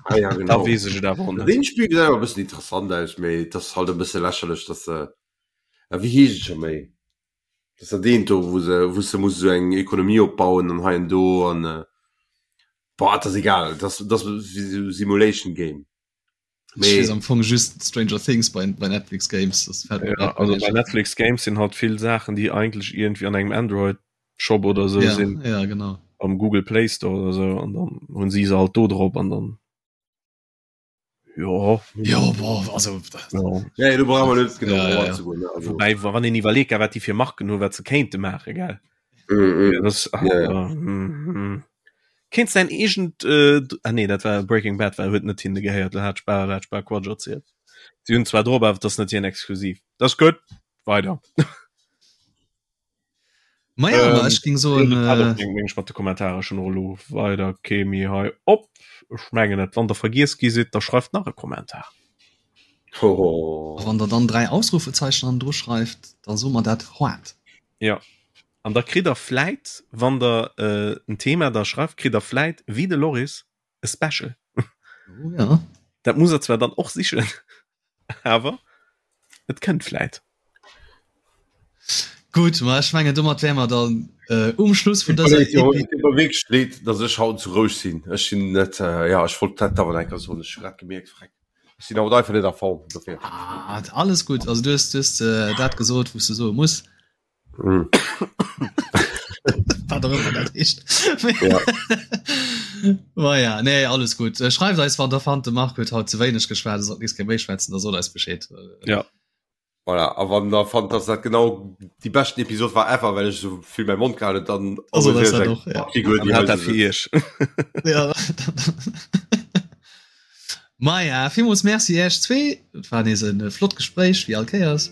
Ah ja, da genau. weess ech et awer och net. Deen Spill gesäit awer e bëssen interessant aus, mee et ass halt e bësse lächerlech, dass se, ah, wéi heescht et scho méi? Dat ass dat eent do, wou se, wou s de muss esou eng Ekonomie opbauen an hei an do an, boah, et ass egal, et ass, et ass wéi esou Simulation Game. Mee am Fong just Stranger Things bei, bei Netflix Games. Das fällt mir Ja, grad also bei bei Netflix Games sinn halt vill Saachen, déi eigentlech iergendwéi an engem Android Shop oder sou ja, sinn, ja, genau. am Google Play Store oder sou an dann hunn si se halt do drop an dann jo Jo, boah, also ja. Ja, do brauche mer net genau Ja, ja, ja. anzegoen, ne, also. Wobäi wann een iwwerleet wat déi fir Marken hunn, wat se kéinte maache gell. Mm, mm. Ja, das, ah, Ja, ja. ja, mm, mm. Kéints däin eegent äh, ah nee, dat war Breaking Bad, war huet net hinne gehéiert, da hat ech bal, hat ech bal Quatsch erzielt. Si hunn zwar drop, awer dat ass net hien exklusiv. Dat ass gutt, weider. Ma ja, ma ech ging soen, Ähm, äh, meng ech mat de Kommentare schon och elo weider kéim hei op. Ech mengen net, wann der vergiess gi sidd, da schreift nach e Kommentar. Hoho. wann der dann 3 Ausrufezeichen hannendru schreift, da soe mer dat hoart. Ja. An da kritt der vläit, wann der äh, en Thema da schreift, kritt der vläit, wéi de Loris, e Special. Oh ja. Dat muss er zwar dann och sichen, awer et kënnt vläit. Gutt, ma ech mengen domat wäre mer dann äh, um Schluss vun dëser Et deet mer wierklech leed, dass ech haut esou roueg sinn. Ech sinn net, äh, ja, ech wollt dat awer enker soen, ech hu grad gemierkt, freck, ech sinn haut einfach net a Form dofir. Ah, alles gutt. Also du hues, du hues äh, dat gesot, wou s du soe muss. Mm. Wat och ëmmer dat heescht. Ja. Ma ja, nee, alles gutt. Äh, Schreift eis, wann der fannt, de Marc huet haut ze wéineg geschwat, e sollt nächst Kéier méi schwätzen, da sot eis Bescheed. Ja. Voilà. A wann der fannt, dass dat genau déi beschten Episod war ever, well ech esou vill mäi Mond gehalen hunn, dann Da sot eis dat och, ja. Figur, Dann déi hat hei dat fir iech. Ja. Maja, villmools Merci Äech zwee. Et war nees e flott Gespréich, wéi all Kéiers.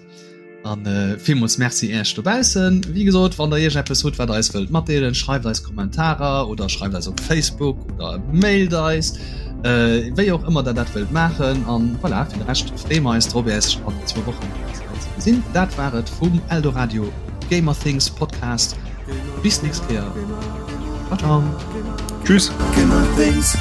An villmools Merci Äech dobaussen. Wéi gesot, wann der iergendeppes hutt, wat der eis wëllt matdeelen, schreift eis Kommentarer oder schreift eis op Facebook oder mailt eis, wéi och ëmmer der dat wëllt maachen. An voilà, fir de Rescht freeë mer eis drop, Äech an zwou Wochen nees hei ze gesinn. Dat war et vum Eldoradio Gamerthings Podcast. Bis nächst Kéier. Ciao, ciao. Tschüss. Gamerthings.